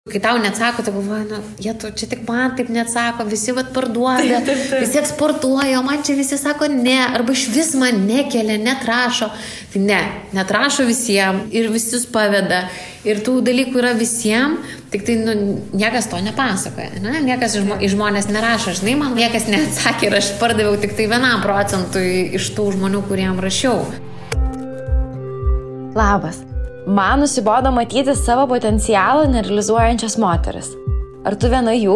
Kai tau neatsako, tai galvoju, čia tik man taip neatsako, visi parduoda, visi eksportuoja, o man čia visi sako ne, arba iš vis man nekelia, netrašo. Tai netrašo visiems ir visus paveda. Ir tų dalykų yra visiems, tik tai niekas to nepasakoja. Ne? Niekas iš žmonės nerašo, žinai, man niekas neatsakė ir aš pardaviau tik tai 1% iš tų žmonių, kuriem rašiau. Labas. Man nusibodo matyti savo potencialą nerealizuojančias moteris. Ar tu viena jų?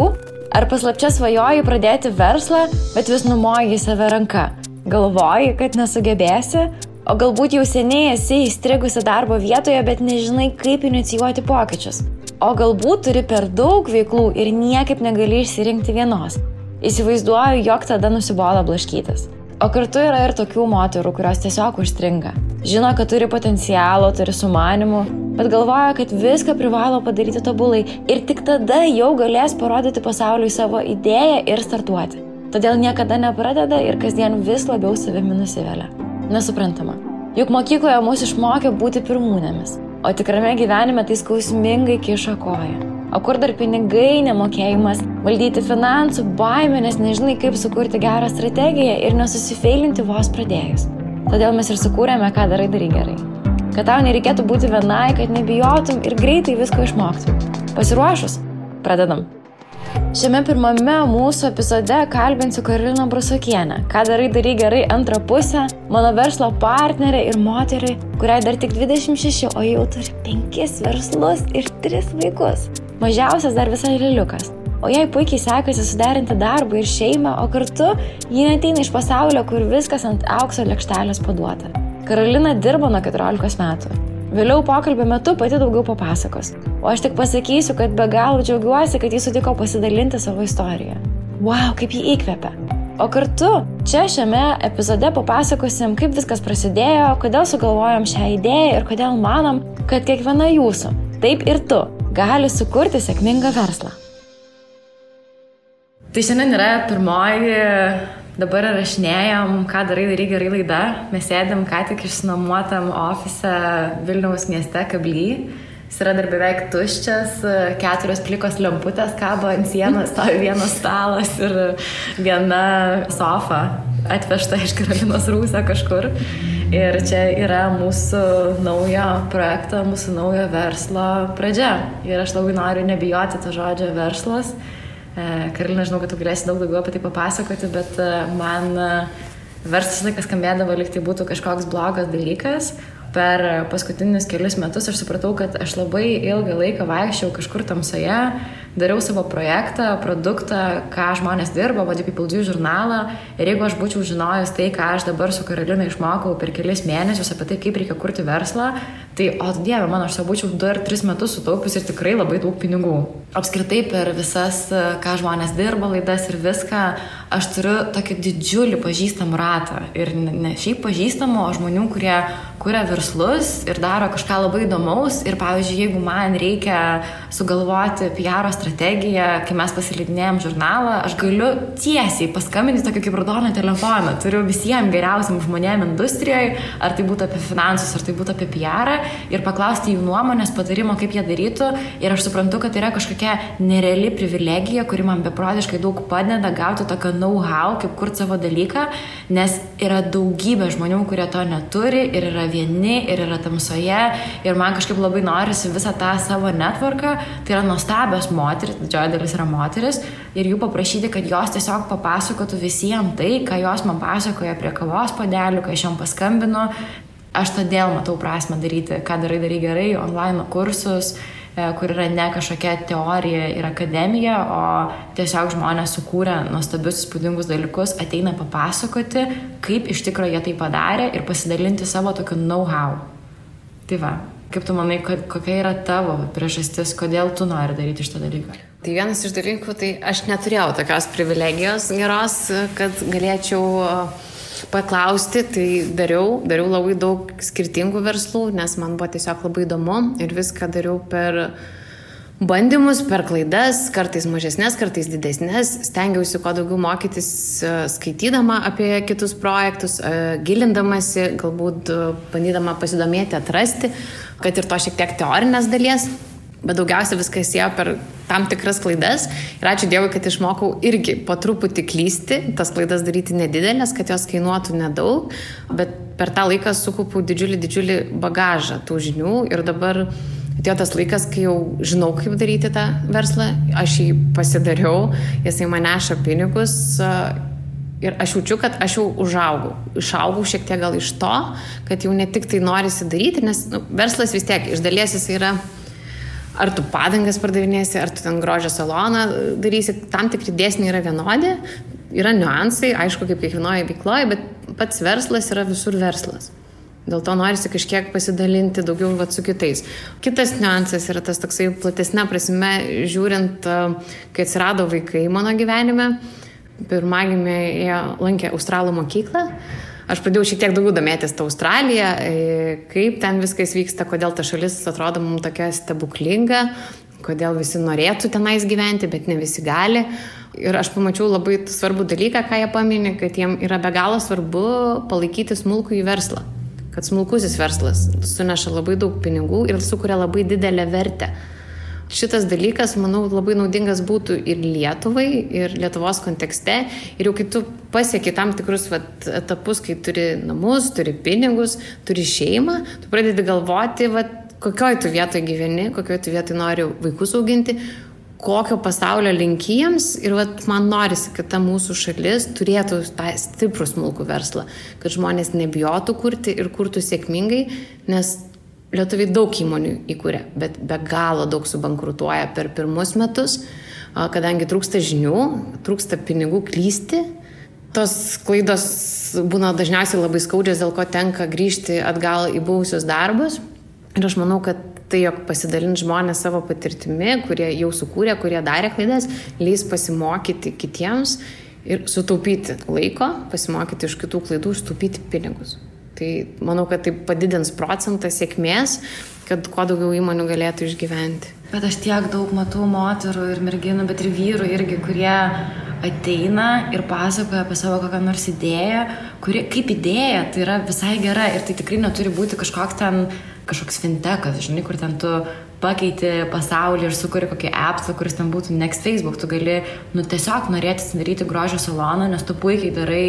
Ar paslapčia svajoji pradėti verslą, bet vis numoji į save ranką? Galvoji, kad nesugebėsi? O galbūt jau seniai esi įstrigusi darbo vietoje, bet nežinai, kaip inicijuoti pokyčius? O galbūt turi per daug veiklų ir niekaip negali išsirinkti vienos? Įsivaizduoju, jog tada nusibodo blaškytis. O kartu yra ir tokių moterų, kurios tiesiog užstringa. Žino, kad turi potencialo, turi sumanimų, bet galvoja, kad viską privalo padaryti tobulai ir tik tada jau galės parodyti pasauliui savo idėją ir startuoti. Todėl niekada nepradeda ir kasdien vis labiau savimi nusivelia. Nesuprantama. Juk mokykloje mus išmokė būti pirmūnėmis, o tikrame gyvenime tai skausmingai kiša koją. O kur dar pinigai, nemokėjimas, valdyti finansų, baimė, nes nežinai, kaip sukurti gerą strategiją ir nesusifeilinti vos pradėjus. Todėl mes ir sukūrėme, ką darai gerai. Kad tau nereikėtų būti vienai, kad nebijotum ir greitai visko išmoktum. Pasiruošus? Pradedam. Šiame pirmame mūsų epizode kalbinsiu Karoliną Brusokienę, ką darai gerai antrą pusę, mano verslo partnerė ir moterį, kuriai dar tik 26, o jau turi 5 verslus ir 3 vaikus. Mažiausias dar visai liliukas. O jai puikiai sekasi suderinti darbą ir šeimą, o kartu ji neateina iš pasaulio, kur viskas ant aukso lėkštelės paduota. Karolina dirbo nuo 14 metų. Vėliau pokalbio metu pati daugiau papasakos. O aš tik pasakysiu, kad be galo džiaugiuosi, kad jis sutiko pasidalinti savo istoriją. Wow, kaip jį įkvepia. O kartu čia šiame epizode papasakosim, kaip viskas prasidėjo, kodėl sugalvojom šią idėją ir kodėl manom, kad kiekviena jūsų, taip ir tu, gali sukurti sėkmingą verslą. Tai šiandien yra pirmoji, dabar rašinėjom, ką darai gerai laida. Mes sėdėm ką tik išsinuomotam ofise Vilniaus mieste Kably. Jis yra dar beveik tuščias, 4 plikos lemputės kabo ant sienos, stovi vienas stalas ir viena sofa atvežta iš Karolinos rūsio kažkur. Ir čia yra mūsų naujo projekto, mūsų naujo verslo pradžia. Ir aš labai noriu nebijoti to žodžio verslas. Karolina, žinau, kad tu galėsi daug daugiau apie tai papasakoti, bet man verslas laikas skambėdavo, lyg tai būtų kažkoks blogas dalykas. Per paskutinius kelius metus aš supratau, kad aš labai ilgą laiką vaikščiau kažkur tamsoje, dariau savo projektą, produktą, ką žmonės dirba, Body People Do žurnalą. Ir jeigu aš būčiau žinojus tai, ką aš dabar su Karolina išmokau per kelis mėnesius apie tai, kaip reikia kurti verslą, tai, o Dieve mano, aš būčiau 2 ar 3 metus sutaupius ir tikrai labai daug pinigų. Apskritai per visas, ką žmonės dirba, laidas ir viską, aš turiu tokį didžiulį pažįstamų ratą. Ir ne šiaip pažįstamų, o žmonių, kurie kuria verslus ir daro kažką labai įdomaus. Ir pavyzdžiui, jeigu man reikia sugalvoti PR strategiją, kai mes pasileidinėjom žurnalą, aš galiu tiesiai paskambinti tokį kaip raudoną telefoną. Turiu visiems geriausiam žmonėm industrijoje, ar tai būtų apie finansus, ar tai būtų apie PR, ir paklausti jų nuomonės, patarimo, kaip jie darytų. Ir aš suprantu, kad tai yra kažkokia nereali privilegija, kuri man beprotiškai daug padeda gauti tokio know-how, kaip kurti savo dalyką, nes yra daugybė žmonių, kurie to neturi ir yra vieni, ir yra tamsoje. Ir man kažkaip labai norisi visą tą savo networką, tai yra nuostabios moteris, didžioji dalis yra moteris, ir jų paprašyti, kad jos tiesiog papasakotų visiems tai, ką jos man pasakoja prie kavos puodelių, kai aš jom paskambinu. Aš todėl matau prasmę daryti, ką darai gerai, online kursus, kur yra ne kažkokia teorija ir akademija, o tiesiog žmonės sukūrė nuostabius įspūdingus dalykus, ateina papasakoti, kaip iš tikrųjų jie tai padarė ir pasidalinti savo tokiu know-how. Tai va, kaip tu manai, kokia yra tavo priežastis, kodėl tu nori daryti šitą dalyką? Tai vienas iš dalykų, tai aš neturėjau tokios privilegijos geros, kad galėčiau paklausti, tai dariau labai daug skirtingų verslų, nes man buvo tiesiog labai įdomu ir viską dariau per bandymus, per klaidas, kartais mažesnės, kartais didesnės. Stengiausi kuo daugiau mokytis skaitydama apie kitus projektus, gilindamasi, galbūt bandydama pasidomėti, atrasti, kad ir to šiek tiek teorinės dalies. Bet daugiausia viskas ėjo per tam tikras klaidas ir ačiū Dievui, kad išmokau irgi po truputį klysti, tas klaidas daryti nedidelės, kad jos kainuotų nedaug, bet per tą laiką sukaupiau didžiulį bagažą tų žinių ir dabar atėjo tas laikas, kai jau žinau, kaip daryti tą verslą, aš jį pasidariau, jisai man neša pinigus ir aš jaučiu, kad aš jau išaugau šiek tiek gal iš to, kad jau ne tik tai norisi daryti, nes verslas vis tiek iš dalies jis yra ar tu padangas pardavinėsi, ar tu ten grožio saloną darysi, tam tikri dėsniai yra vienodi, yra niuansai, aišku, kaip kiekvienoje veikloje, bet pats verslas yra visur verslas. Dėl to norisi kažkiek pasidalinti daugiau su kitais. Kitas niuansas yra tas toksai platesnė prasme, žiūrint, kai atsirado vaikai mano gyvenime, pirmagimė lankė Australų mokyklą. Aš pradėjau šiek tiek daugiau domėtis tą Australiją, kaip ten viskas vyksta, kodėl ta šalis atrodo mums tokia stebuklinga, kodėl visi norėtų tenais gyventi, bet ne visi gali. Ir aš pamačiau labai svarbų dalyką, ką jie paminė, kad jiem yra be galo svarbu palaikyti smulkųjį verslą. Kad smulkusis verslas suneša labai daug pinigų ir sukuria labai didelę vertę. Šitas dalykas, manau, labai naudingas būtų ir Lietuvai, ir Lietuvos kontekste. Ir jau kai tu pasieki tam tikrus etapus, kai turi namus, turi pinigus, turi šeimą, tu pradedi galvoti, kokioj tu vietoje gyveni, kokioj tu vietoje nori vaikus auginti, kokio pasaulio link jiems. Ir man norisi, kad ta mūsų šalis turėtų tą stiprų smulkų verslą, kad žmonės nebijotų kurti ir kurtų sėkmingai, nes lietuviai daug įmonių įkūrė, bet be galo daug subankrutuoja per pirmus metus, kadangi trūksta žinių, trūksta pinigų klysti. Tos klaidos būna dažniausiai labai skaudžios, dėl ko tenka grįžti atgal į buvusius darbus. Ir aš manau, kad tai, jog pasidalint žmonės savo patirtimi, kurie jau sukūrė, kurie darė klaidas, leis pasimokyti kitiems ir sutaupyti laiko, pasimokyti iš kitų klaidų, sutaupyti pinigus. Tai manau, kad tai padidins procentą sėkmės, kad kuo daugiau įmonių galėtų išgyventi. Bet aš tiek daug matau moterų ir merginų, bet ir vyrų irgi, kurie ateina ir pasakoja apie savo kokią nors idėją, kuri kaip idėja tai yra visai gera ir tai tikrai neturi būti kažkoks fintechas, žinai, kur ten tu pakeiti pasaulį ir sukuri kokį appsą, kuris ten būtų next Facebook. Tu gali tiesiog norėti atsidaryti grožio saloną, nes tu puikiai darai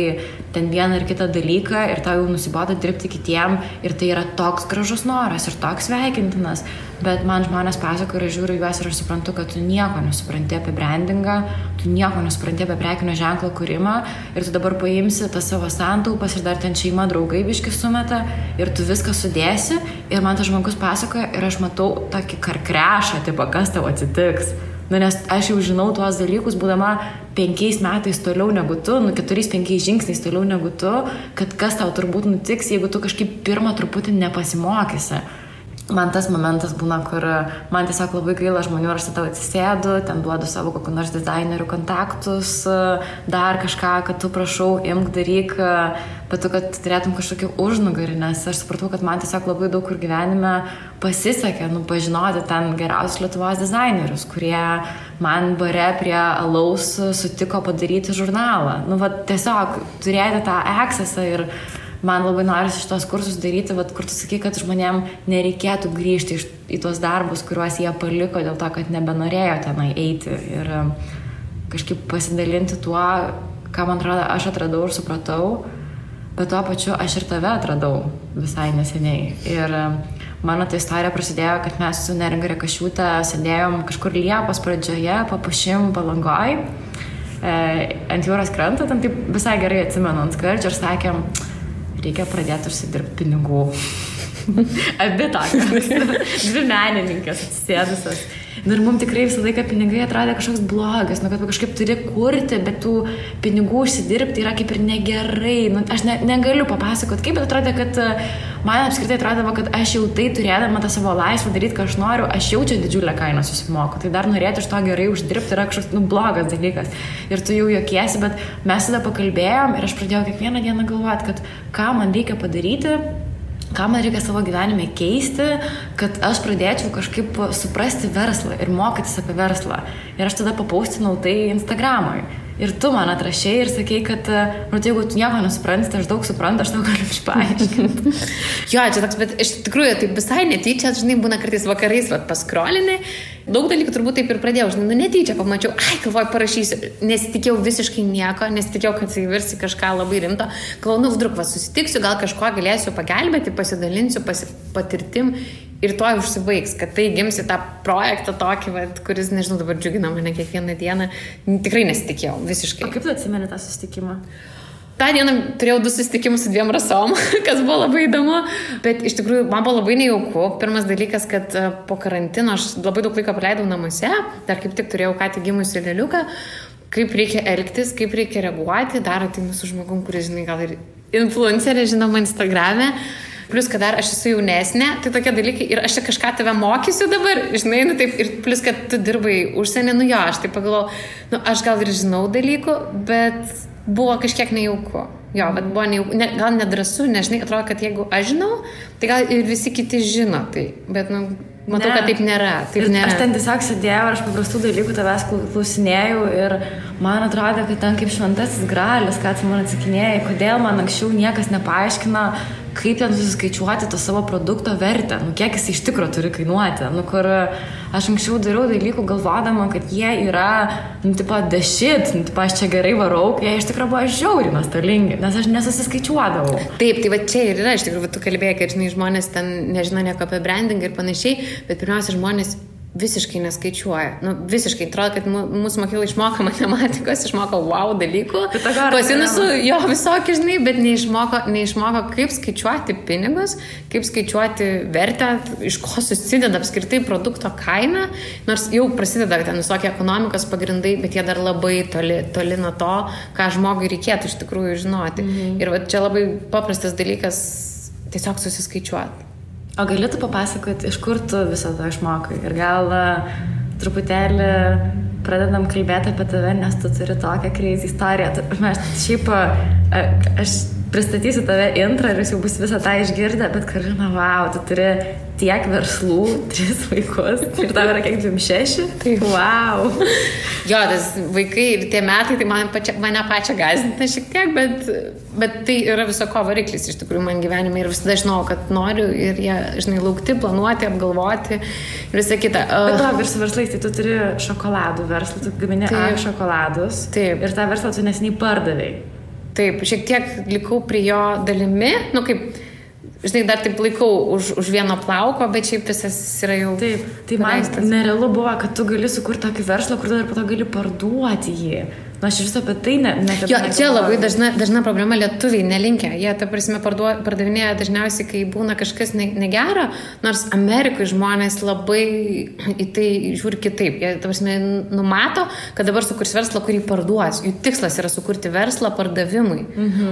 ten vieną ir kitą dalyką ir tau jau nusibodo dirbti kitiem ir tai yra toks gražus noras ir toks sveikintinas. Bet man žmonės pasakoja ir aš žiūriu juos ir aš suprantu, kad tu nieko nesupranti apie brandingą, tu nieko nesupranti apie prekinio ženklo kūrimą ir tu dabar paimsi tas savo santaupas ir dar ten šeima draugai biškį sumeta ir tu viską sudėsi ir man tas žmogus pasakoja ir aš matau tokį karkrešą, tipo, kas tau atsitiks. Nes aš jau žinau tuos dalykus, būdama 5 metais toliau negu tu, 4-5 žingsniais toliau negu tu, kad kas tau turbūt nutiks, jeigu tu kažkaip pirmą truputį nepasimokysi. Man tas momentas būna, kur man tiesiog labai gaila žmonių, aš tada atsisėdu, ten duodu savo kokių nors dizainerių kontaktus, dar kažką, kad tu prašau, imk, daryk, bet tu, kad turėtum kažkokį užnugarį, nes aš supratau, kad man tiesiog labai daug kur gyvenime pasisekė, pažinoti ten geriausius Lietuvos dizainerius, kurie man bare prie alaus sutiko padaryti žurnalą. Tiesiog turėti tą accessą ir man labai norisi šitos kursus daryti, kur tu sakai, kad žmonėm nereikėtų grįžti į tuos darbus, kuriuos jie paliko dėl to, kad nebenorėjo tenai eiti ir kažkaip pasidalinti tuo, ką man atrodo aš atradau ir supratau, bet tuo pačiu aš ir tave atradau visai neseniai. Ir mano ta istorija prasidėjo, kad mes su Neringa Rekašiūte sėdėjom kažkur Liepos pradžioje, Papušim Palangoj, ant jūros kranto, ten taip visai gerai atsimenu ant skardžio ir sakėm, reikia pradėti užsidirbti pinigų. Abi tokios. 2 menininkės atsisėdusios. Ir mums tikrai visą laiką pinigai atrodė kažkoks blogas, kad kažkaip turi kurti, bet tų pinigų užsidirbti yra kaip ir negerai. Aš negaliu papasakoti, kaip, bet atrodė, kad man apskritai atrodavo, kad aš jau tai turėdama tą savo laisvę daryti, ką aš noriu, aš jau čia didžiulę kainą susimoku. Tai dar norėti iš to gerai uždirbti yra kažkoks blogas dalykas. Ir tu jau juokiesi, bet mes tada pakalbėjom ir aš pradėjau kiekvieną dieną galvoti, kad ką man reikia padaryti, ką man reikia savo gyvenime keisti, kad aš pradėčiau kažkaip suprasti verslą ir mokytis apie verslą. Ir aš tada papaustinau tai Instagramui. Ir tu man atrašėjai ir sakei, kad, jeigu tu nieko nesupranti, tai aš daug suprantu, aš tau galiu išpaaiškinti. Jo, čia toks, bet iš tikrųjų, tai visai netyčia, žinai, būna kartais vakarais, paskrolinai, daug dalykų turbūt taip ir pradėjau, žinai, netyčia pamačiau, galvoju, parašysiu, nesitikėjau visiškai nieko, nesitikėjau, kad tai virsi kažką labai rimto, galvoju, vdruk, susitiksiu, gal kažko galėsiu pagelbėti, pasidalinsiu patirtim. Ir to užsibaigs, kad tai gimsi tą projektą tokį, kuris, nežinau, dabar džiugina mane kiekvieną dieną. Tikrai nesitikėjau, visiškai. O kaip tu atsimeni tą susitikimą? tą dieną turėjau 2 susitikimus su 2 rasom, kas buvo labai įdomu, bet iš tikrųjų man buvo labai nejauku. Pirmas dalykas, kad po karantino aš labai daug laiko praleidau namuose, dar kaip tik turėjau ką tik gimusį lėliuką, kaip reikia elgtis, kaip reikia reaguoti, dar ateinu su žmogum, kuris, žinai, gal ir influencerė, žinoma, Instagrame. Plus, kad dar aš esu jaunesnė, tai tokie dalykai ir aš čia kažką tave mokysiu dabar, žinai, nu taip, ir plus, kad tu dirbai užsienį, nu jo, aš taip pagalvojau, nu aš gal ir žinau dalykų, bet buvo kažkiek nejauku. Jo, bet buvo nejauku, gal nedrąsu, nežinai, atrodo, kad jeigu aš žinau, tai gal ir visi kiti žino tai, bet, nu, matau, kad taip nėra. Aš ten tiesiog sėdėjau ir aš paprastų dalykų tavęs klausinėjau ir man atrodo, kad ten kaip šventasis gralis, ką tu man atsakinėjai, kodėl man anksčiau niekas nepaaiškina, kaip ten susiskaičiuoti to savo produkto vertę, nu kiek jis iš tikro turi kainuoti, nu kur aš anksčiau dariau dalykų galvodama, kad jie yra, nu tipo, the shit, nu tipo, aš čia gerai varau, jie iš tikro buvo žiauriai nuostolingi, nes aš nesusiskaičiuodavau. Taip, tai va čia ir yra, iš tikrųjų, tu kalbėjai, kad, žinai, žmonės ten nežino nieko apie branding ir panašiai, bet pirmiausia, žmonės visiškai neskaičiuoja. Nu, visiškai, atrodo, kad mūsų mokykla išmoko matematikos, išmoko wow dalykų. Pasinusų jo visokį, žinai, bet neišmoko, kaip skaičiuoti pinigus, kaip skaičiuoti vertę, iš ko susideda apskritai produkto kaina, nors jau prasideda ten visokie ekonomikos pagrindai, bet jie dar labai toli nuo to, ką žmogui reikėtų iš tikrųjų žinoti. Ir va, čia labai paprastas dalykas tiesiog susiskaičiuoti. O galėtų papasakoti, iš kur tu visą to išmokai? Ir gal truputėlį pradedam kalbėti apie tave, nes tu turi tokią crazy istoriją. Šiaip aš pristatysiu tave intrą ir jūs jau bus visą tą išgirdę, bet Karolina, wow, tu turi tiek verslų, 3 vaikus ir tau yra kiek 26? Tai wow. Jo, tas vaikai ir tie metai, tai mane pačią gąsdina šiek tiek, bet tai yra viso ko variklis iš tikrųjų man gyvenime ir visada žinau, kad noriu ir jie, žinai, laukti, planuoti, apgalvoti ir visą kitą. Bet to ir su verslais, tai tu turi šokoladų verslą, tu gamini šokoladus. Taip. Ir tą verslą tu neseniai pardavei. Taip, šiek tiek likau prie jo dalimi, nu kaip, žinai, dar taip laikau už vieno plauko, bet šiaip visas yra jau... Taip, tai man nerealu buvo, kad tu gali sukurti tokį verslą, kur dar po to gali parduoti jį. Na, aš vis apie tai jo, čia labai dažna problema, lietuviai nelinkia. Jie, ta prasme, pardavinėja dažniausiai, kai būna kažkas negera, nors Amerikoje žmonės labai į tai žiūri kitaip. Jie, ta prasme, numato, kad dabar sukurs verslą, kurį parduos. Jų tikslas yra sukurti verslą pardavimui,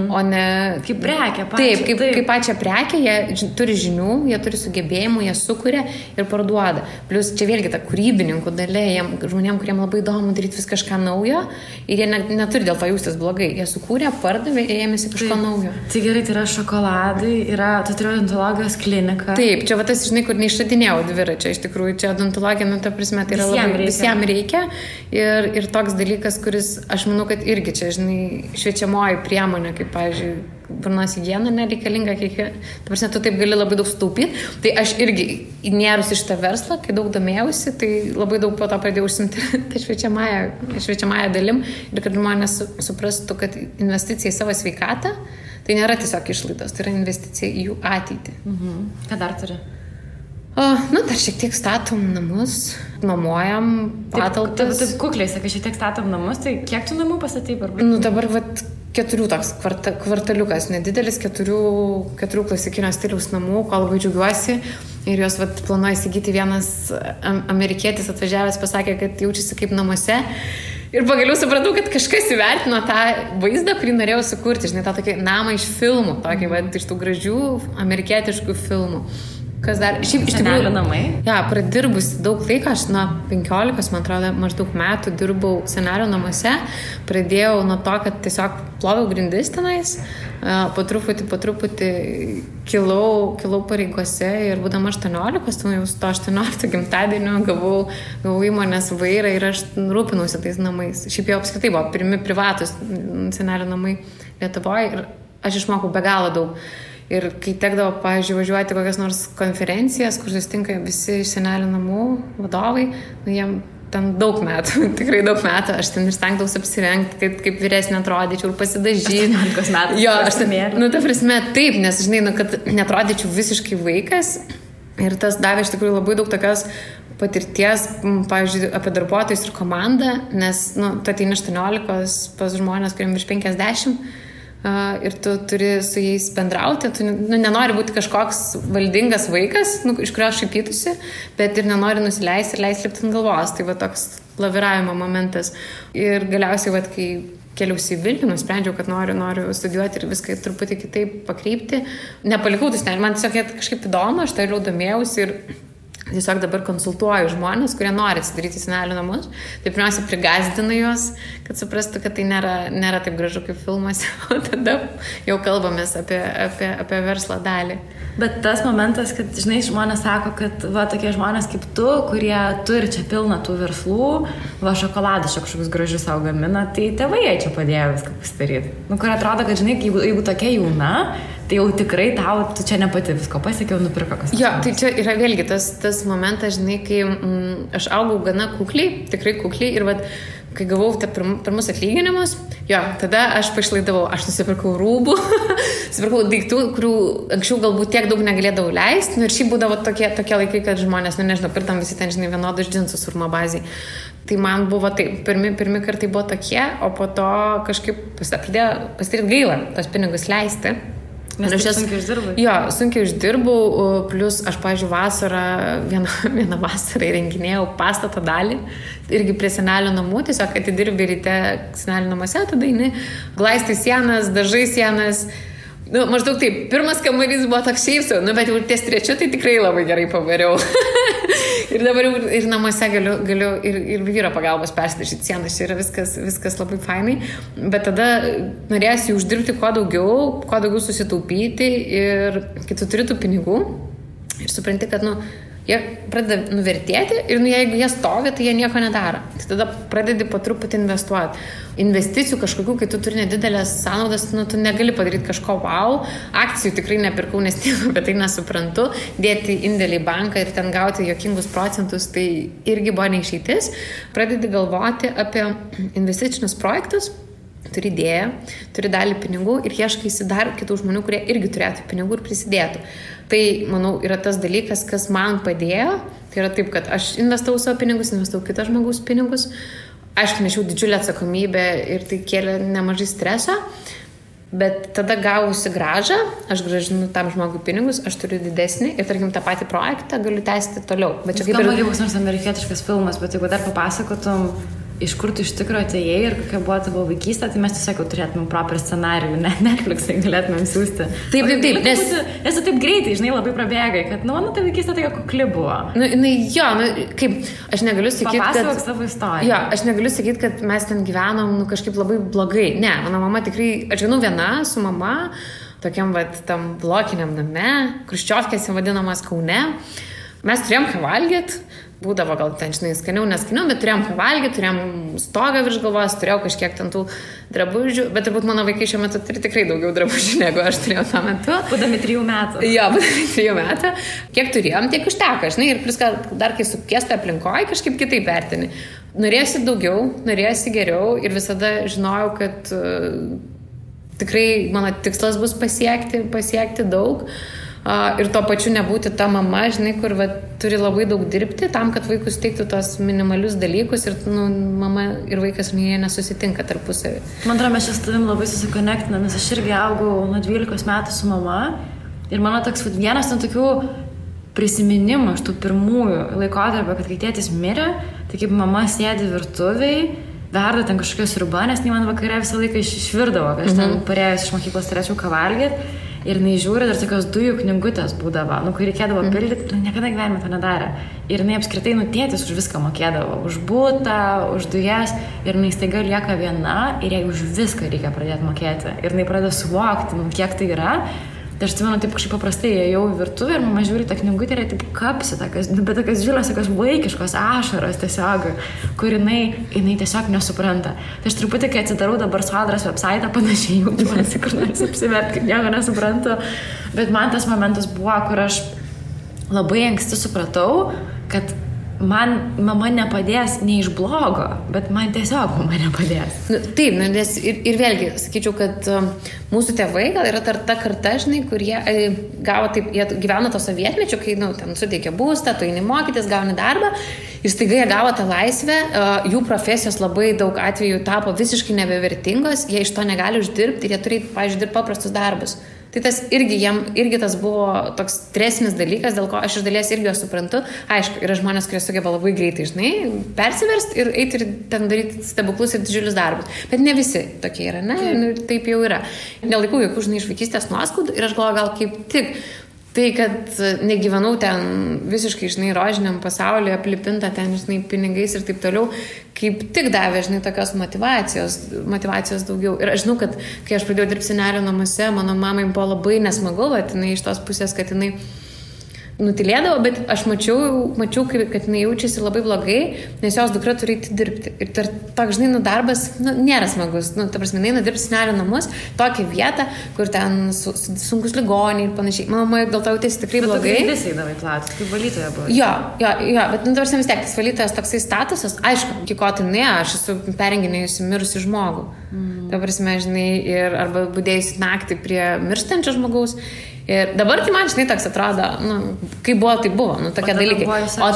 o ne... Kaip prekę, pačią. Taip, kaip pačią prekę, jie turi žinių, jie turi sugebėjimų, jie sukuria ir parduoda. Plius čia vėlgi ta kūrybininkų dalia, žmonėm, kuriem labai įdomu daryti vis kažką naujo. Ir jie neturi dėl to jaustis blogai. Jie sukūrė, pardavė ir ėmėsi kažko naujo. Tai gerai, tai yra šokoladai, tu turi odontologijos kliniką. Taip, čia va tas, žinai, kur neišradinėjau dviračio. Iš tikrųjų, čia odontologija, nu, ta prasme, tai yra visiems reikia. Ir toks dalykas, kuris, aš manau, kad irgi čia, žinai, šviečiamoji priemonė, kaip, pavyzdžiui, burnos higiena nereikalinga, ta prasme, tu taip gali labai daug sutaupyti. Tai aš irgi įnėrus iš tą verslą, kai daug domėjausi, tai labai daug po to pradėjau užsimti tą šviečiamąją dalim ir kad žmonės suprastų, kad investicija į savo sveikatą tai nėra tiesiog išlaidos, tai yra investicija į jų ateitį. Ką dar turi? Dar šiek tiek statom namus, nuomojam patalpas. Taip kukliai, sakai, šiek tiek statom namus, tai kiek tu namų pastatei? Dabar 4 toks kvartaliukas, nedidelis, 4 klasikinio stiliaus namų, ko labai džiaugiuosi. Ir jos planuoja įsigyti. Vienas amerikietis atvažiavęs pasakė, kad jaučiasi kaip namuose. Ir pagaliau supratau, kad kažkas įvertino tą vaizdą, kurį norėjau sukurti. Žinai, tą tokį namą iš filmų, tokį, iš tų gražių amerikietiškų filmų. Kas dar? Šiaip iš Senelių namai? Ja, pradirbusi daug laiko, aš nuo 15, man atrodo, maždaug metų dirbau senelių namuose. Pradėjau nuo to, kad tiesiog ploviau grindis tenais, po truputį kilau pareigose ir būdama 18, tai jau su to 18 gimtadienio gavau įmonės vairą ir aš rūpinausi tais namais. Šiaip jau apskritai buvo pirmi privatus senelių namai Lietuvoje ir aš išmokau be galo daug. Ir kai tekdavo, pavyzdžiui, važiuoti kokias nors konferencijas, kur susitinka visi iš senelių namų vadovai, jiem ten daug metų, tikrai daug metų, aš ten ir stengdavausi apsirengti, kaip vyresnė atrodyčiau ir pasidažyti. 18 metų. Jo, aš ten, ta prasme, taip, nes, žinai, kad netrodyčiau visiškai vaikas ir tas davė iš tikrųjų labai daug tokios patirties, pavyzdžiui, apie darbuotojus ir komandą, nes, tu ateini 18 pas žmonės, kuriem virš 50, ir tu turi su jais bendrauti, tu nenori būti kažkoks valdingas vaikas, iš kurio šaipytųsi, bet ir nenori nusileisti ir leisti lipti ant galvos. Tai va toks laviravimo momentas. Ir galiausiai, va, kai keliausi į Vilnių, nusprendžiau, kad noriu studijuoti ir viską truputį kitaip pakreipti. Nepalikau tų senelių, man tiesiog kažkaip įdomu, aš toliau domėjausi ir tiesiog dabar konsultuoju žmonės, kurie nori atsidaryti senelių namus. Tai pirmiausia, prigazdinu juos, kad suprastų, kad tai nėra taip gražu kaip filmuose, o tada jau kalbamės apie verslo dalį. Bet tas momentas, kad, žinai, žmonės sako, kad va, tokie žmonės kaip tu, kurie turi čia pilną tų verslų, va, šokoladas kažkokius gražius savo gamina, tai tėvai jie čia padėjo viską pasidaryti. Kur atrodo, kad, žinai, jeigu tokia jauna, tai jau tikrai tu čia ne pati visko pasiekiau, nupirko kas. Jo, tai čia yra vėlgi tas momentas, žinai, kai aš augau gana kukliai, tikrai kukliai ir vat, kai gavau pirmus atlyginimus, jo, tada aš pašlaidavau, aš nusipirkau rūbų, nusipirkau daiktų, kurių anksčiau galbūt tiek daug negalėdavau leisti, ir šiaip būdavo tokie laikai, kad žmonės, nežinau, pirtam visi ten, žinai, vienodus džinsus urmo baziai. Tai man buvo taip, pirmi kartai buvo tokie, o po to kažkaip pradėjo pasidaryti gaila tos pinigus leisti. Nes sunkiai uždirbai? Jo, sunkiai uždirbau, plus aš, pavyzdžiui, vieną vasarą įrenginėjau pastato dalį, irgi prie senelių namų, tiesiog atidirbi ryte senelių namuose, tada eini, glaistai sienas, dažai sienas. Maždaug taip, pirmas kambarys buvo toks šiaip, bet jau ties trečiu tai tikrai labai gerai pavariau. Ir dabar ir namuose galiu ir vyro pagalbos persidažyti sienas, čia yra viskas labai fainai, bet tada norėsi uždirbti kuo daugiau susitaupyti ir kai tu turi tų pinigų ir supranti, kad, jie pradeda nuvertėti ir jeigu jie stovi, tai jie nieko nedaro. Tai tada pradedi po truputį investuoti. Investicijų kažkokių, kai tu turi nedidelės sąnaudas, tu negali padaryti kažko wow. Akcijų tikrai nepirkau, nes nieko apie tai nesuprantu. Dėti indėlį į banką ir ten gauti jokingus procentus, tai irgi buvo neišeitis. Pradedi galvoti apie investicinius projektus. Turi idėją, turi dalį pinigų ir ieškaisi dar kitų žmonių, kurie irgi turėtų pinigų ir prisidėtų. Tai, manau, yra tas dalykas, kas man padėjo. Tai yra taip, kad aš investavau savo pinigus, investavau kitą žmogaus pinigus. Aišku, nešiau didžiulę atsakomybę ir tai kėlė nemažai streso. Bet tada gavusi grąžą, aš grąžinu tam žmogui pinigus, aš turiu didesnį ir, tarkim, tą patį projektą galiu tęsti toliau. Bet čia kaip ir... Skamba nors amerikietiškas filmas, bet jeigu dar papasakotum, iš kur tu iš tikrųjų atėjai ir kokia buvo tavo vaikystė, tai mes tiesiog jau turėtumėm proper scenarijų, Netflix'ai galėtumėm siūsti. Taip, nes tu taip greitai, žinai, labai prabėgai, kad, ta vaikystė tokia kukli buvo. Kaip, aš negaliu sakyti, papasakok savo istoriją. Jo, aš negaliu sakyti, kad mes ten gyvenom, kažkaip labai blogai. Ne, mano mama tikrai, aš gyvenau viena su mama, tokiam, tam blokiniam name, Chruščiovkėse vadinamas Kaune. Mes turėjom ką valgyti. Būdavo gal ten, žinai, skaniau, neskaniau, bet turėjom ką valgyti, turėjom stogą virš galvos, turėjau kažkiek ten tų drabužių, bet turbūt mano vaikai šiuo metu turi tikrai daugiau drabužių, negu aš turėjau tuo metu. Būdami 3 metų. Jo, būdami 3 metų. Kiek turėjom, tiek užteko, žinai, ir plus dar kai sukiesta aplinkoje, kažkaip kitaip vertini. Norėjosi daugiau, norėjosi geriau ir visada žinojau, kad tikrai mano tikslas bus pasiekti daug. Ir tuo pačiu nebūti ta mama, žinai, kur turi labai daug dirbti tam, kad vaikus teiktų tos minimalius dalykus ir mama ir vaikas jie nesusitinka tarpusavį. Man atrodo, mes čia su tavim labai susikonektinam, nes aš irgi augau nuo 12 metų su mama ir mano toks vienas nuo tokių prisiminimų iš tų pirmųjų laikotarpio, kad kai tėtis mirė, tai kaip mama sėdi virtuviai, verda ten kažkokios sriuba, nes man vakare visą laiką išvirdavo, kai aš ten parėjus iš mokyklos turėčiau ką valgyti. ir jinai žiūri, dar tokios dujų knygutės būdavo, kur reikėdavo pildyti, niekada gyvenime to nedarė. Ir jinai apskritai, tėtis už viską mokėdavo, už butą, už dujas, ir jinai staiga lieka viena ir jai už viską reikia pradėti mokėti. Ir jinai pradeda suvokti, kiek tai yra. Tai aš atsimenu, taip kažkaip paprastai ėjau į virtuvę ir mama žiūri tą knygutę ir taip kapsi, bet tokios žiūros, tokios vaikiškos ašaros tiesiog, kur jinai tiesiog nesupranta. Tai aš truputį, kai atsidarau dabar Sodros website, panašiai jaučiuosi, kur nors apsiverti, kaip nieko nesuprantu. Bet man tas momentas buvo, kur aš labai anksti supratau, kad man mama nepadės ne iš blogo, bet man tiesiog mama nepadės. Taip, nes ir vėlgi, sakyčiau, kad mūsų tėvai gal yra ta karta, žinai, kur jie gavo taip, jie gyveno to sovietmečio, kai, ten suteikė būstą, tu eini mokytis, gauni darbą ir staiga jie gavo tą laisvę, jų profesijos labai daug atvejų tapo visiškai nebevertingos, jie iš to negali uždirbti ir jie turi, pavyzdžiui, dirbti paprastus darbus. Tai tas irgi tas buvo toks stresinis dalykas, dėl ko aš iš dalies irgi juos suprantu. Aišku, yra žmonės, kurie sugeba labai greitai, žinai, persiverst ir eiti ir ten daryti stebuklus ir didžiulius darbus. Bet ne visi tokie yra, ne? Taip jau yra. Nelaikau jokių, žinai, iš vaikystės nuoskaudų ir aš galvoju, gal kaip tik tai, kad negyvenau ten visiškai, žinai, rožiniam pasaulyje, aplipinta ten, žinai, pinigais ir taip toliau, kaip tik davė, žinai, tokios motyvacijos daugiau. Ir aš žinau, kad kai aš pradėjau dirbti senelio namuose, mano mamai buvo labai nesmagu, bet jinai iš tos pusės, kad jinai nutilėdavo, bet aš mačiau, kad jinai jaučiasi labai blogai, nes jos dukra turi eiti dirbti. Ir toks, žinai, darbas, nėra smagus. Ta prasme, jinai nudirbti senelio namus, tokią vietą, kur ten sunkus ligoniai ir panašiai. Mama dėl to jautėsi tikrai blogai. Bet tu visai davai platus, kaip valytoja buvo. Jo, bet ta prasme vis tiek, tas valytojas toksai statusas, aišku, iki ko tai ne, aš esu perenginėjusi mirusi žmogų. Ta prasme, žinai, ir arba budėjusi naktį prie mirštančio žmogaus. Ir dabar tai man, žinai, toks atrodo, kai buvo, tai buvo, tokie dalykai. O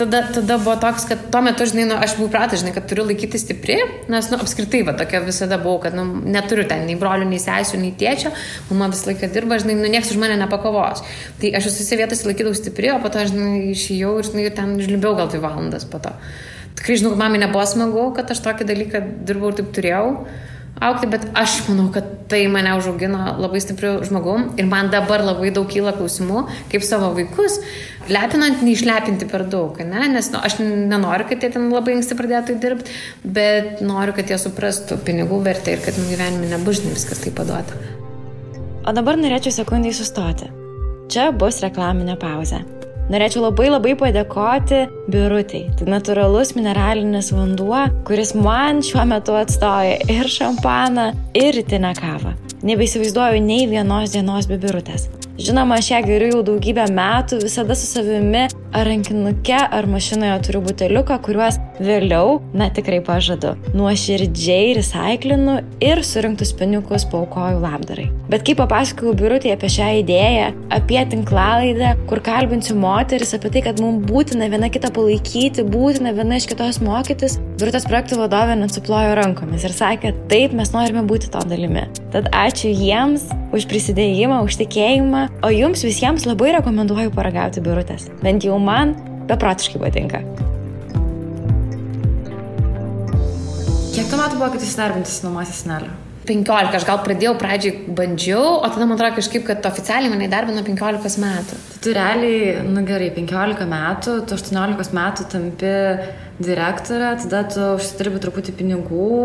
tada buvo toks, kad tuo metu, žinai, aš buvau pratas, žinai, kad turiu laikyti stipri, nes, apskritai, tokia visada buvau, kad, neturiu ten nei brolių, nei sesių, nei tėčio, mama visą laiką dirba, žinai, nieks už mane nepakovos. Tai aš visose vietose laikydavau stipri, o po to, žinai, išėjau ir, žinai, ten žlimbiau gal 2 valandas po to. Tikrai, žinau, kad mamai nebuvo smagu, kad aš tokį dalyką dirbau ir taip turėjau aukti, bet aš manau, kad tai mane užaugino labai stipriu žmogum ir man dabar labai daug kyla klausimų, kaip savo vaikus lepinant, neišlepinti per daug, ne? Nes aš nenoriu, kad jie ten labai anksti pradėtų dirbti, bet noriu, kad jie suprastų pinigų vertę ir kad gyvenime nebus viskas taip paduota. O dabar norėčiau sekundai sustoti. Čia bus reklaminė pauzė. Norėčiau labai padėkoti Birutei. Tai natūralus mineralinis vanduo, kuris man šiuo metu atstoja ir šampaną, ir rytinę kavą. Nebeįsivaizduoju nei vienos dienos be Birutės. Žinoma, aš ją geriu jau daugybę metų, visada su savimi ar rankinuke, ar mašinoje turiu buteliuką, kuriuos vėliau, tikrai pažadu, nuoširdžiai recaiklinu ir surinktus pinigus paaukoju labdarai. Bet kai papasakojau Birutei apie šią idėją, apie tinklalaidę, kur kalbinsiu moteris, apie tai, kad mums būtina viena kitą palaikyti, būtina viena iš kitos mokytis, Birutės projektų vadovė net suplojo rankomis ir sakė, taip, mes norime būti to dalimi. Tad ačiū jiems už prisidėjimą, už tikėjimą, o jums visiems labai rekomenduoju paragauti Birutės. Bent jau man beprotiškai patinka. Kiek tu metų buvo, kad įsidarbintis nuomasis senelio? 15, aš gal pradėjau pradžiai bandžiau, o tada man atrodo kažkaip, kad oficialiai mane įdarbino 15 metų. Tu realiai, gerai, 15 metų, tu 18 metų tampi direktorė, tada tu užsidirbi truputį pinigų.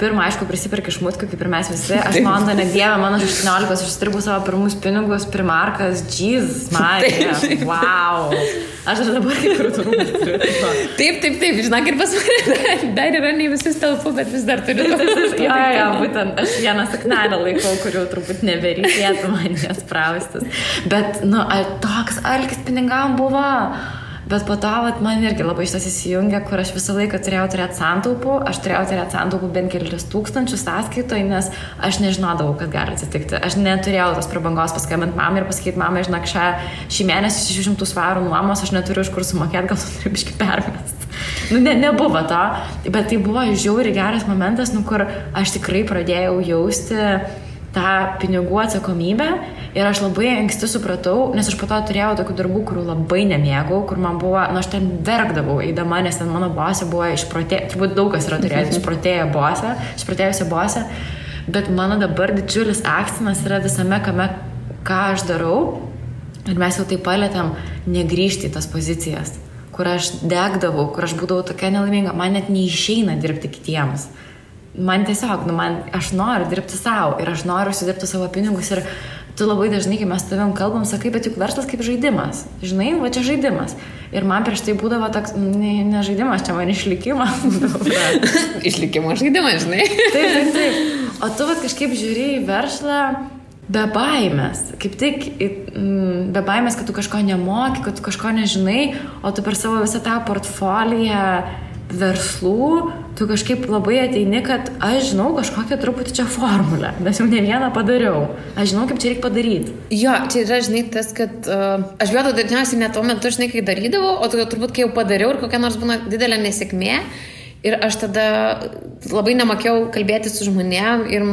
Pirmą, aišku, prisiperki šmutkių, kaip ir mes visi. Aš Londone dievę, mano 18, aš užsidirbu savo pirmus pinigus, primarkas, Jesus, Marija, wow. Aš dabar kaip ir turiu. Taip, žinok, ir pas mane dar yra ne visus telpu, bet vis dar turiu. Jo, būtent aš vieną saknelę laikau, kurių turbūt nebereikėtų man jas praustis. Bet, toks alkis pinigam buvo. Bet po to man irgi labai šitas įsijungia, kur aš visą laiką turėjau turėti santaupų. Aš turėjau turėti santaupų bent kelis tūkstančius sąskaitoje, nes aš nežinodavau, kad gali atsitikti. Aš neturėjau tos prabangos paskambinti mamai ir pasakyti, mama, žinok, šį mėnesį 600 svarų nuomos, aš neturiu iš kur sumokėti, gal tu turi biškį permest. Nebuvo to, bet tai buvo žiauriai geras momentas, kur aš tikrai pradėjau jausti tą pinigų atsakomybę ir aš labai anksti supratau, nes aš po to turėjau tokių darbų, kurių labai nemėgau, kur man buvo, aš ten verkdavau eidama, nes ten mano bosė buvo turbūt daug kas yra turėjęs išprotėjusią bosę, Bet mano dabar didžiulis akcentas yra visame, ką aš darau. Ir mes jau taip palėtėm negrįžti į tas pozicijas, kur aš degdavau, kur aš būdavau tokia nelaiminga. Man net neišeina dirbti kitiems. Man tiesiog, aš noriu dirbti savo ir aš noriu užsidirbti savo pinigus. Ir tu labai dažnai, kai mes tavim kalbam, sakai, bet juk verslas kaip žaidimas. Žinai, va čia žaidimas. Ir man prieš tai būdavo toks, ne žaidimas, čia man išlikimas. Išlikimo žaidimas, žinai. Taip. O tu kažkaip žiūri į verslą be baimės. Kaip tik be baimės, kad tu kažko nemoki, kad tu kažko nežinai, o tu per savo visą tą portfoliją verslų, tu kažkaip labai ateini, kad aš žinau kažkokią truputį čia formulę, nes jau ne vieną padariau. Aš žinau, kaip čia reikia padaryti. Jo, čia yra, žinai, tas, kad aš bijau dažniausiai net tuo metu, žinai, kai darydavau, o turbūt, kai jau padariau ir kokia nors būna didelė nesėkmė, ir aš tada labai nemokėjau kalbėti su žmonėm ir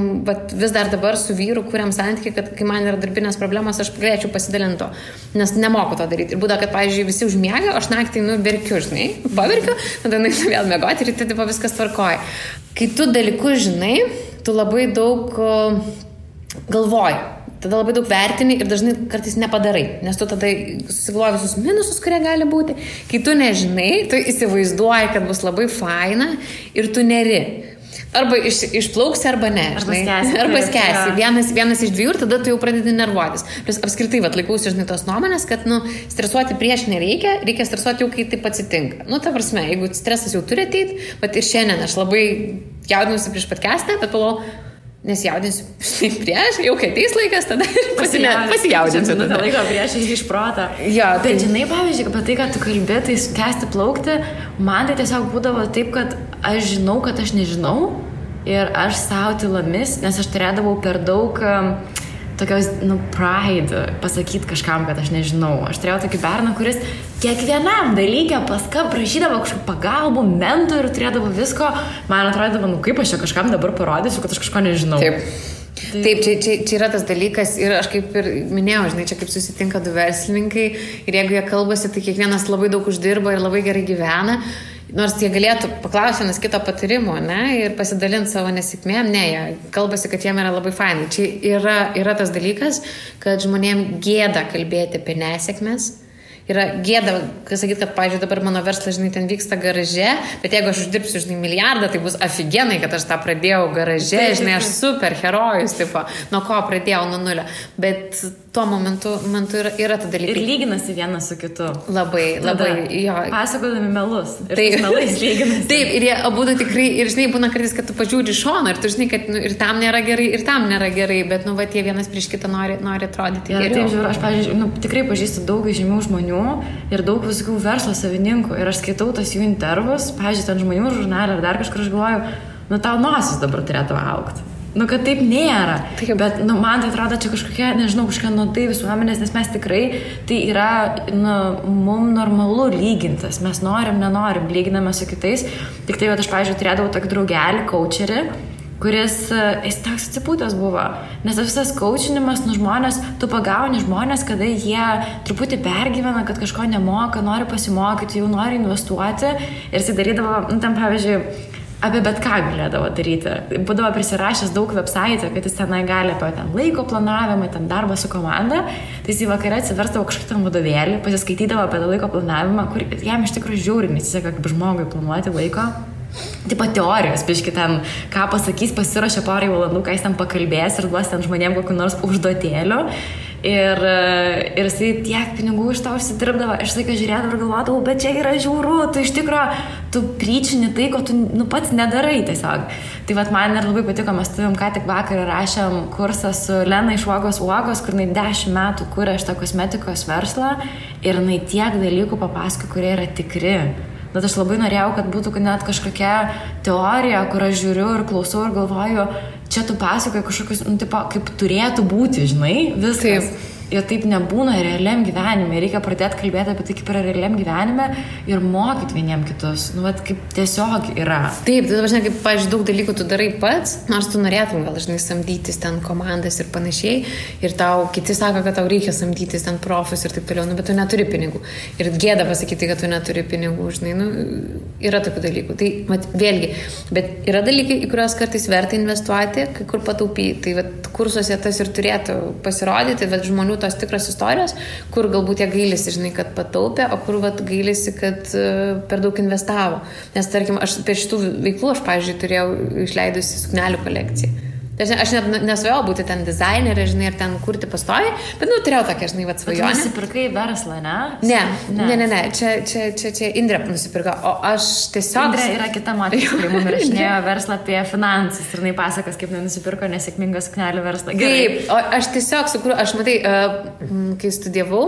vis dar dabar su vyru kuriam santykį, kad kai man yra darbinės problemos, aš galėčiau pasidalinti to, nes nemoku to daryti. Ir būda, kad, pavyzdžiui, visi užmiega, aš naktį, verkiu, žinai, paverkiu, tada vėl miegoti ir tada viskas tvarkoja. Kai tu dalykus žinai, tu labai daug galvoji. Tada labai daug vertini ir dažnai kartais nepadarai, nes tu tada susigalvoji visus minusus, kurie gali būti. Kai tu nežinai, tu įsivaizduoji, kad bus labai faina ir tu neri. Arba išplauksi, arba ne. Arba skęsi. Vienas iš dviejų ir tada tu jau pradedi nervuotis. Plius apskritai, laikausi, žinai, tos nuomonės, kad, stresuoti prieš nereikia, reikia stresuoti jau, kai taip atsitinka. Ta prasme, jeigu stresas jau turi ateiti, bet ir šiandien aš labai jaudinusi prieš podcastą, bet pagalvojau, nesijaudinsiu prieš, jau kai ateis laikas, tada pasijaudinsiu. Tada laiko prieš iš protą. Jo, bet žinai, pavyzdžiui, apie tai, kad tu kalbė, tai skęsti plaukti, man tai tiesiog būdavo taip, kad aš žinau, kad aš nežinau ir aš savo tylomis, nes aš turėdavau per daug tokios, pride pasakyti kažkam, kad aš nežinau. Aš turėjau tokį berną, kuris kiekvienam dalykė prašydavo kažkokį pagalbų, mentorių, turėdavo visko. Man atrodavo, kaip aš čia kažkam dabar parodysiu, kad aš kažko nežinau. Taip, čia yra tas dalykas ir aš kaip ir minėjau, žinai, čia kaip susitinka du verslininkai ir jeigu jie kalbasi, tai kiekvienas labai daug uždirba ir labai gerai gyvena. Nors jie galėtų paklausti vienas kito patarimo, ir pasidalinti savo nesėkmėm, jie kalbasi, kad jiem yra labai fainai. Čia yra tas dalykas, kad žmonėm gėda kalbėti apie nesėkmės. Yra gėda, sakyti, kad, pavyzdžiui, dabar mano verslas, žinai, ten vyksta garaže, bet jeigu aš uždirbsiu, žinai, milijardą, tai bus afigenai, kad aš tą pradėjau garaže, žinai, aš super herojus, tipo, nuo ko pradėjau, nuo nulio. Bet tuo momentu yra ta dalykai. Ir lyginasi vienas su kitu. Labai, jo. Pasakodami melus. Ir taip, melais lyginasi. Taip, ir jie abudu tikrai, ir žinai, būna kartais, kad tu pažiūri šoną, ir tu žinai, kad ir tam nėra gerai, ir tam nėra gerai, bet, jie vienas prieš kitą nori atrodyti geriau. Taip, žiūrėjau, aš, pavyzdžiui, tikrai pažįstu daug žymių žmonių ir daug visokių verslo savininkų ir aš skaitau tas jų intervus, pavyzdžiui, ten žmonių žurnalį ar dar kažkur, aš galvoju, tau nosis dabar turėtų augti. Kad taip nėra. Taip. Bet, man tai atrodo, čia kažkokia, nežinau, kažkokia nuodai visuomenės, nes mes tikrai, tai yra, mums normalu lygintas. Mes nenorim, lyginame su kitais. Tik tai, aš, pavyzdžiui, turėdavau tokį draugelį, coacherį, kuris, jis toks atsipūtęs buvo. Nes visas coachinimas, žmonės, tu pagauni žmonės, kada jie truputį pergyvena, kad kažko nemoka, nori pasimokyti, jau nori investuoti. Ir jis darydavo, ten, pavyzdžiui, apie bet ką galėdavo daryti. Būdavo prisirašęs daug website, kad jis tenai gali apie ten laiko planavimą, ten darbą su komanda. Tai jis į vakarą atsiverstavo kažkokį ten vadovėlį, pasiskaitydavo apie laiko planavimą, kur jam iš tikrųjų žiauriai nesiseka kaip žmogui planuoti laiko. Taip pat teorijos, biški ten, ką pasakys, pasiruošia porai valandų, ką jis ten pakalbės ir duos ten žmonėm kokiu nors užduotėliu. Ir jisai tiek pinigų iš to užsidirbdavo, aš laiką žiūrėdavau ir galvodavau, bet čia yra žiauru, tu iš tikrųjų, tu pryčini tai, ko tu pats nedarai tiesiog. Tai vat man ir labai patiko, mes ką tik vakar rašėm kursą su Lena iš Uogos, kur jinai 10 metų kuria šitą kosmetikos verslą ir jinai tiek dalykų papasako, kurie yra tikri. Bet aš labai norėjau, kad būtų net kažkokia teorija, kur aš žiūriu ir klausau ir galvoju, čia tu pasakoji kažkokius, kaip turėtų būti, žinai, viskas. Ir taip nebūna realiam gyvenime. Reikia pradėti kalbėti apie tai, kaip yra realiam gyvenime ir mokyti vieniem kitus. Nu, vat, kaip tiesiog yra. Taip, tai dabar, kaip, pavyzdžiui, daug dalykų tu darai pats, nors tu norėtum gal, žinai, samdytis ten komandas ir panašiai. Ir tau kiti sako, kad tau reikia samdytis ten profus ir taip toliau, nu, bet tu neturi pinigų. Ir gėda pasakyti, kad tu neturi pinigų, žinai, nu, yra tokių dalykų. Tai, mat, vėlgi, bet yra dalykai, į kuriuos kartais verta investuoti, kai kur pataupyti. Tai, vat, kursuose tas ir turėtų pasirodyti, bet žmonių tos tikros istorijos, kur galbūt jie gailisi, žinai, kad pataupė, o kur vat, gailisi, kad per daug investavo. Nes, tarkim, aš per šitų veiklų, aš, pavyzdžiui, turėjau išleidusi suknelių kolekciją. Aš net nesvajojau būti ten dizainerė, žinai, ir ten kurti pastoviai, bet, nu, turėjau tokią, žinai, vat svajonę. Bet tu nusipirkai verslą, ne? Ne. Čia Indrė nusipirko, o aš tiesiog... Indrė yra kita moteris, kuri mums rašinėjo verslą apie finansus ir jinai pasakas, kaip nusipirko nesėkmingą suknelių verslą. Gerai. Taip, o aš tiesiog sukūriau, aš matai, kai studijavau,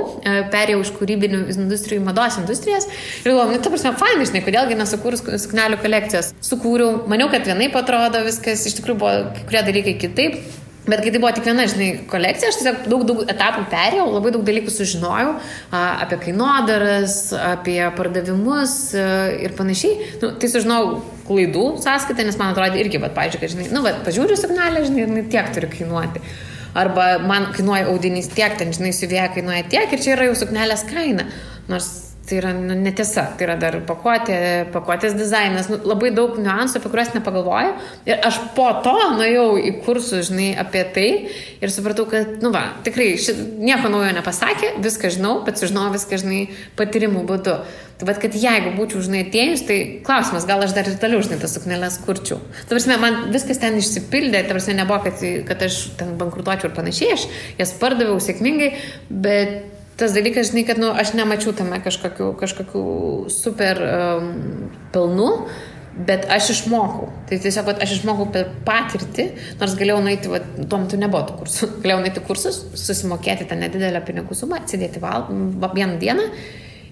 perėjau iš kūrybinių industrijų į mados industrijas ir galvoju, nu, ta prasme, fainai, žinai, kodėlgi nesukūrus suknelių kolekcijos. Sukūriau, maniau, kad vienaip atrodo viskas, iš tikrųjų buvo kai kurie dalykai kitaip, bet kai tai buvo tik viena, žinai, kolekcija, aš tiesiog daug etapų perėjau, labai daug dalykų sužinojau apie kainodaras, apie pardavimus ir panašiai. Nu, tai sužinojau klaidų sąskaitą, nes man atrodė irgi, bet, pavyzdžiui, kad, žinai, nu, bet pažiūriu signalę, žinai, tiek turi kainuoti. Arba man kainuoja audinys tiek, ten, žinai, siuvėja kainuoja tiek ir čia yra jau suknelės kaina. Nors tai yra netiesa, tai yra dar pakuotės dizainas, nu, labai daug niuansų, apie kuriuos nepagalvoju. Ir aš po to nuėjau į kursus, žinai, apie tai ir supratau, kad, nu va, tikrai nieko naujo nepasakė, viską žinau, bet sužinau viską, žinai, patyrimų būdu. Tai bet, kad jeigu būčiau, žinai, atėjus, tai klausimas, gal aš dar ir toliau, žinai, tas sukneles kurčiau. Ta prasme, man viskas ten išsipildė, ta prasme, nebuvo, kad aš ten bankrutuočiau ir panašiai, aš jas pardaviau sėkmingai, bet tas dalykas, žinai, kad, nu, aš nemačiau tame kažkokių super pelnų, bet aš išmokau. Tai tiesiog, aš išmokau per patirtį, nors galėjau nueiti, tuo metu nebuvo tų kursų, galėjau nueiti kursus, susimokėti tą nedidelę pinigų sumą, atsidėti vieną dieną.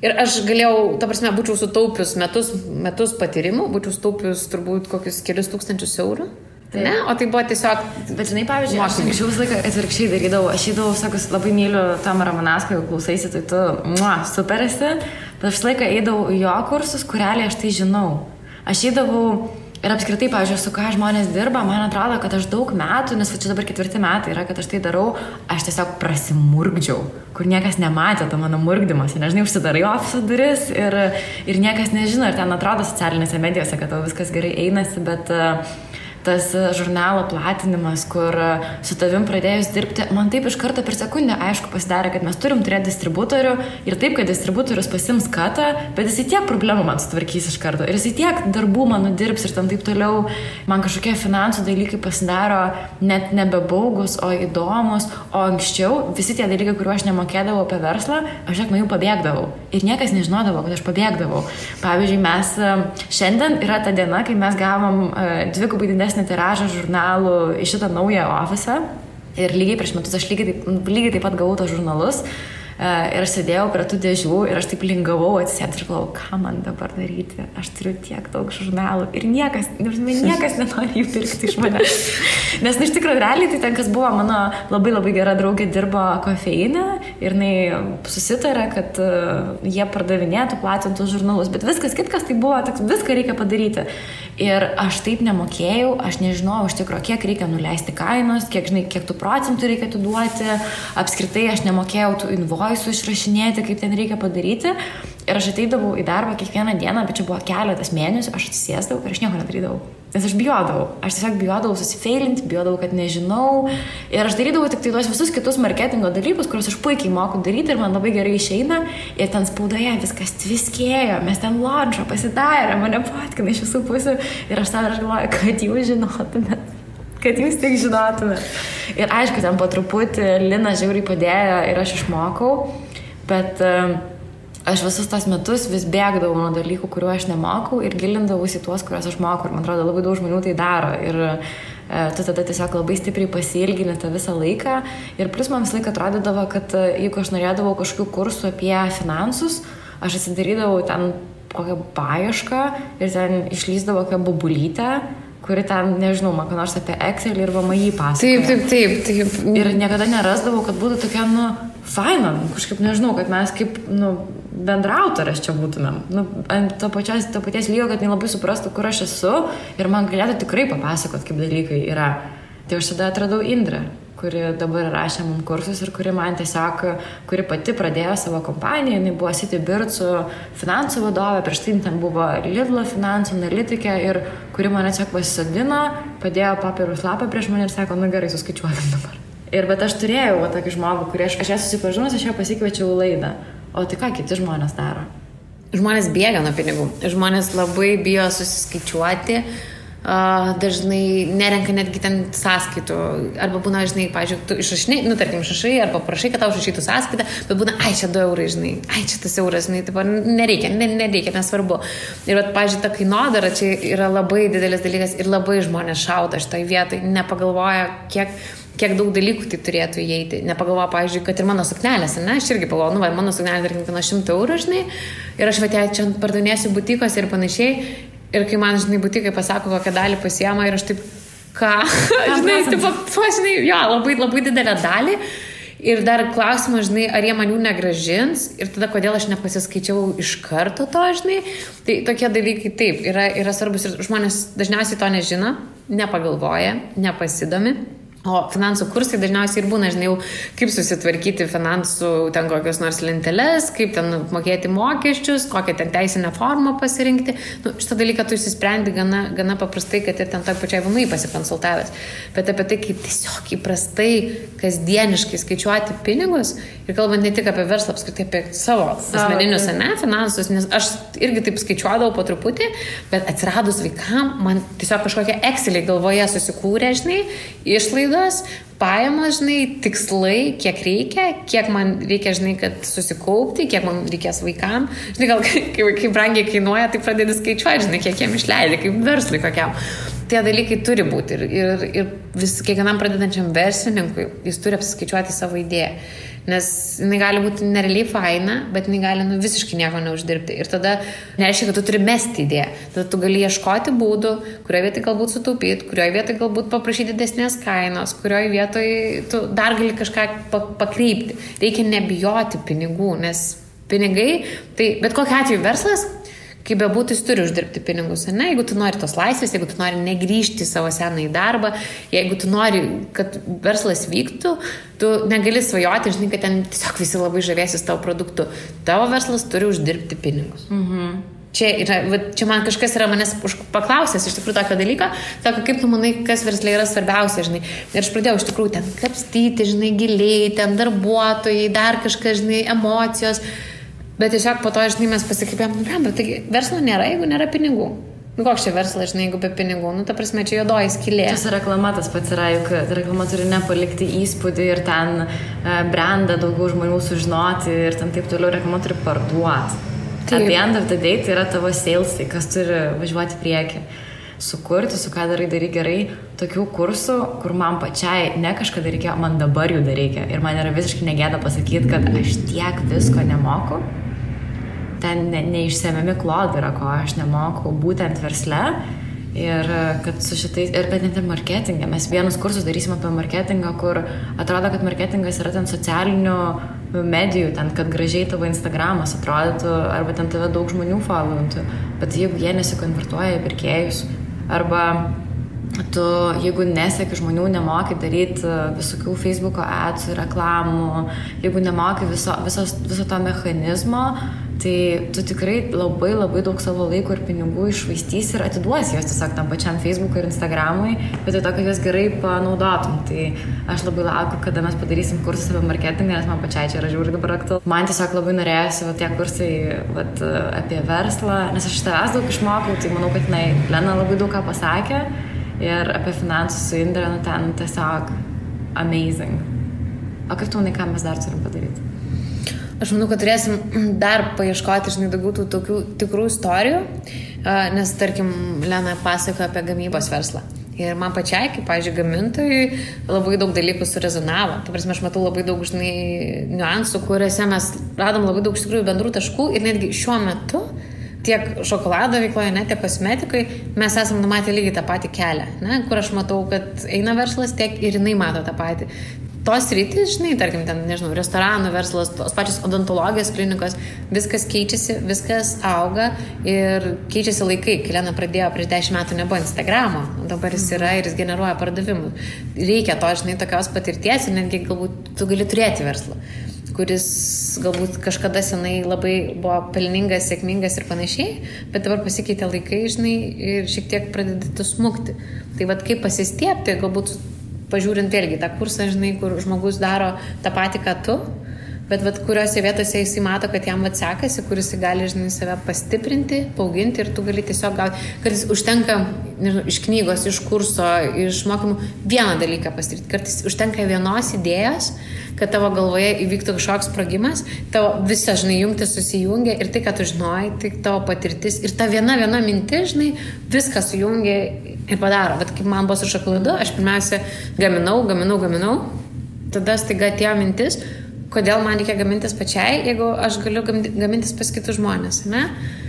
Ir aš galėjau, ta prasme, būčiau sutaupius metus patyrimų, būčiau sutaupius turbūt kokius kelius tūkstančius eurų. Tai. Ne, o tai buvo tiesiog... Bet žinai, pavyzdžiui, aš visą laiką atvirkščiai darydavau. Aš įdavau, sakus, labai myliu Tomą Ramanauską, jeigu klausaisi, tai tu super esi. Bet aš visą laiką eidavau į jo kursus, kur realiai aš tai žinau. Aš įdavau ir apskritai, pavyzdžiui, su ką žmonės dirba, man atrodo, kad aš daug metų, nes čia dabar 4 metai yra, kad aš tai darau, aš tiesiog prasimurgdžiau, kur niekas nematė to mano murgdymas. Nežinai, užsidarai ofiso duris ir niekas nežino, ir ten atrodo socialinėse medijose, kad tau viskas gerai einasi, bet... tas žurnalo platinimas, kur su tavim pradėjus dirbti, man taip iš karto per sekundę aišku pasidarė, kad mes turim turėti distributorių ir taip, kad distributorius pasims katą, bet jisai tiek problemų man sutvarkys iš karto ir jisai tiek darbų man nudirbs ir tam taip toliau, man kažkokie finansų dalykai pasidaro net nebebaugus, o įdomus, o anksčiau visi tie dalykai, kuriuo aš nemokėdavau apie verslą, aš nuo jų pabėgdavau ir niekas nežinodavo, kad aš pabėgdavau. Pavyzdžiui, mes šiandien yra ta diena, kai mes gavom dvigubai didesnį tiražą žurnalų į šitą naują ofisą ir lygiai prieš metus aš lygiai taip pat gavau tos žurnalus ir aš sėdėjau prie tų dėžių ir aš taip lingavau atsisėdus ir galvojau, ką man dabar daryti, aš turiu tiek daug žurnalų ir niekas nenori jų pirkti iš manęs. Nes iš tikrųjų realiai tai ten, kas buvo mano labai labai gera draugė, dirbo kofeinę ir jinai susitarė, kad jie pardavinėtų, platintų žurnalus, bet viskas kitkas tai buvo, viską reikia padaryti. Ir aš taip nemokėjau, aš nežinojau iš tikrųjų, kiek reikia nuleisti kainos, kiek tų procentų reikia atiduoti, apskritai aš nemokėjau tų invoisų išrašinėti, kaip ten reikia padaryti. Ir aš ateidavau į darbą kiekvieną dieną, bet čia buvo keletas mėnesių, aš atsisėsdavau ir aš nieko nedarydavau. Nes aš bijodavau. Aš tiesiog bijodavau susifeilinti, bijodavau, kad nežinau. Ir aš darydavau tik tai tuos visus kitus marketingo dalykus, kuriuos aš puikiai moku daryti ir man labai gerai išeina. Ir ten spaudoje viskas tviskėjo, mes ten launchą pasidarė, mane fotkina iš visų pusių. Ir aš savo galvoju, kad jūs žinotumėt. Kad jūs tik žinotumėt. Ir aišku, ten po truputį Lina žiauriai padėjo ir aš išmokau. Bet... aš visus tos metus vis bėgdavau nuo dalykų, kuriuo aš nemokau ir gilindavausi tuos, kuriuos aš mokau. Ir man atrodo, labai daug žmonių tai daro. Ir tu tada tiesiog labai stipriai pasiilgini tą visą laiką. Ir plus man visą laiką atrodydavo, kad jeigu aš norėdavau kažkokių kursų apie finansus, aš atsidarydavau ten kokią paiešką ir ten išlysdavo kokią bubulytę, kuri ten, nežinau, man ką nors apie Excel ir VMI pasakoja. Taip. Ir niekada nerasdavau, kad būtų tokia, faina, kažkaip nežinau, kad mes kaip, bendrautorės čia būtumėm. Ant to paties lygio, kad labai suprastų, kur aš esu ir man galėtų tikrai papasakot, kaip dalykai yra. Tai aš tada atradau Indrę, kuri dabar rašė mums kursus ir kuri man tiesiog, kuri pati pradėjo savo kompaniją, jinai buvo Citybirdsų finansų vadovė, prieš tai ten buvo Lidlo finansų analitikė ir kuri mane tiesiog pasisadino, padėjo papirus lapą prieš mane ir sako, gerai, suskaičiuokim dabar. Ir bet aš turėjau tokį žmogų, kurį aš ją susipažinus, aš ją pasikviečiau laidą. O tai ką kiti žmonės daro? Žmonės bėga nuo pinigų. Žmonės labai bijo susiskaičiuoti. Dažnai nerenka netgi ten sąskaitų. Arba būna, žinai, pavyzdžiui, tu išrašinai, tarkim, išrašai, arba prašai, kad tau išrašytų sąskaitą, bet būna, čia 2 eurai, žinai, čia tas euras, žinai, taip, nereikia, nesvarbu. Ir, pavyzdžiui, ta kainodara čia yra labai didelis dalykas ir labai žmonės šaudo šitoj vietoj, nepagalvoja, kiek daug dalykų tai turėtų įeiti. Nepagalvoja, pavyzdžiui, kad ir mano suknelės, aš irgi pagalvoju, mano suknelė, tarkim, kainuoja 100 eurų, žinai, ir aš čia pardavinėsiu butikos ir panašiai. Ir kai man, žinai, butikai pasako, kokią dalį pasiema ir aš taip, ką? Žinai, labai didelę dalį. Ir dar klausimas, žinai, ar jie man jų negražins ir tada kodėl aš nepasiskaičiau iš karto to, žinai. Tai tokie dalykai taip, yra svarbus ir žmonės dažniausiai to nežino, nepagalvoja, nepasidomi. O finansų kursai dažniausiai ir būna, žinai, kaip susitvarkyti finansų ten kokios nors lenteles, kaip ten mokėti mokesčius, kokią ten teisinę formą pasirinkti. Šitą dalyką tu įsisprendi gana paprastai, kad ir ten toj pačiai VMI pasikonsultavęs. Bet apie tai, kaip tiesiog įprastai, kasdieniškai skaičiuoti pinigus ir kalbant ne tik apie verslą, apskritai apie savo asmeninius, finansus, nes aš irgi taip skaičiuodavau po truputį, bet atsiradus vaikam, man tiesiog kažkokie Exceliai galvoje susikūrė, žinai, išlaidos, pajamos, žinai, tikslai, kiek reikia, kiek man reikia, žinai, kad susikaupti, kiek man reikės vaikam. Žinai, gal kai brangiai kainuoja, tai pradedi skaičiuoti, žinai, kiek jiem išleidė, kaip verslui kokiam. Tie dalykai turi būti ir kiekvienam pradedančiam verslininkui jis turi apsiskaičiuoti savo idėją. Nes jinai gali būti nerealiai faina, bet jinai gali visiškai nieko neuždirbti. Ir tada nereiškia, kad tu turi mesti idėją. Tada tu gali ieškoti būdų, kurioje vietoje galbūt sutaupyti, kurioje vietoje galbūt paprašyti didesnės kainos, kurioje vietoje tu dar gali kažką pakreipti. Reikia nebijoti pinigų, nes pinigai, tai bet kokiu atveju verslas, kaip bebūtų, jis turi uždirbti pinigus, ne? Jeigu tu nori tos laisvės, jeigu tu nori negrįžti į savo senąjį darbą, jeigu tu nori, kad verslas vyktų, tu negali svajoti, žinai, kad ten tiesiog visi labai žavėsis tavo produktu. Tavo verslas turi uždirbti pinigus. Čia man kažkas yra manęs paklausęs iš tikrųjų tokio dalyko, sako, kaip tu manai, kas versle yra svarbiausia, žinai. Ir aš pradėjau iš tikrųjų ten kapstyti, žinai, giliai, ten darbuotojai, dar kažkas, žinai, emocijos. Bet tiesiog po to, žinai, mes pasikreipėm, bet taigi verslo nėra, jeigu nėra pinigų. Koks čia verslas, žinai, jeigu be pinigų? Ta prasme, čia juodoji skylė. Tas reklama tas pats yra, juk reklama turi nepalikti įspūdį ir ten brandą daugiau žmonių sužinoti ir ten taip toliau reklama turi parduoti. At the end of the day tai yra tavo salesai, kas turi važiuoti priekį. Sukurti, su ką darai gerai, tokių kursų, kur man pačiai ne kažkada reikėjo, man dabar jų reikia. Ir man yra visiškai negėda pasakyti, kad aš tiek visko nemoku. Ten neišsemiami klodai yra, ko aš nemoku būtent versle. Ir kad su šitais, ir bet net ir marketingą. Mes vienus kursus darysim apie marketingą, kur atrodo, kad marketingas yra ten socialinių medijų, ten, kad gražiai tavo Instagramas atrodytų, arba ten tave daug žmonių followintų. Bet jeigu jie nesikonvertuoja į pirkėjus, arba tu, jeigu neseki žmonių, nemoki daryti visokių Facebooko adsų, reklamų, jeigu nemoki viso to mechanizmo, tai tu tikrai labai daug savo laiko ir pinigų iššvaistysi ir atiduosi jos tiesiog tam pačiam Facebook'ui ir Instagram'ui, bet tai to, kad juos gerai panaudotum. Tai aš labai laukiu, kada mes padarysim kursus apie marketingą, nes man pačiai čia yra žiūri dabar aktualu. Man tiesiog labai norėjosi tie kursai apie verslą, nes aš iš tavęs daug išmokau, tai manau, kad Lena labai daug ką pasakė ir apie finansus su Indre, ten tiesiog amazing. O kaip tu manai, ką mes dar turim padaryti? Aš manau, kad turėsim dar paieškoti, žinai, daugiau tų tokių tikrų istorijų, nes, tarkim, Lena pasakoja apie gamybos verslą. Ir man pačiai, kaip, pavyzdžiui, gamintojui, labai daug dalykų surezonavo. Tai prasme, aš matau labai daug, žinai, niuansų, kuriuose mes radom labai daug iš tikrųjų bendrų taškų ir netgi šiuo metu tiek šokolado veikloje, ne, tiek kosmetikai, mes esam numatę lygiai tą patį kelią, ne, kur aš matau, kad eina verslas, tiek ir jinai mato tą patį. tos rytis, žinai, tarkim, ten, nežinau, restoranų verslas, tos pačios odontologijos klinikos, viskas keičiasi, viskas auga ir keičiasi laikai. Kai Lena pradėjo prieš 10 metų nebuvo Instagramo, dabar jis yra ir jis generuoja pardavimų. Reikia to, žinai, tokios patirties ir netgi galbūt tu gali turėti verslą, kuris galbūt kažkada senai labai buvo pelningas, sėkmingas ir panašiai, bet dabar pasikeitė laikai, žinai, ir šiek tiek pradeda smukti. Tai vat kaip pasistiepti, galbūt pažiūrint vėlgi tą kursą, žinai, kur žmogus daro tą patį, ką tu, bet vat kuriuose vietose jisai mato, kad jam sekasi, kur jisai gali, žinai, save pastiprinti, paauginti ir tu gali tiesiog gauti, kartais užtenka, nežinau, iš knygos, iš kurso, iš mokymų vieną dalyką pasidaryti. Kartais užtenka vienos idėjos, kad tavo galvoje įvyktų kažkoks sprogimas, tavo visa, žinai, jungtis susijungia ir tai, ką tu žinojai, tai tavo patirtis ir ta viena mintis, žinai, viską sujungia ir padaro. Bet kaip man buvo su šokoladu, aš pirmiausia gaminau, tada staiga atėjo mintis, kodėl man reikia gamintis pačiai, jeigu aš galiu gamintis pas kitus žmonės, ne?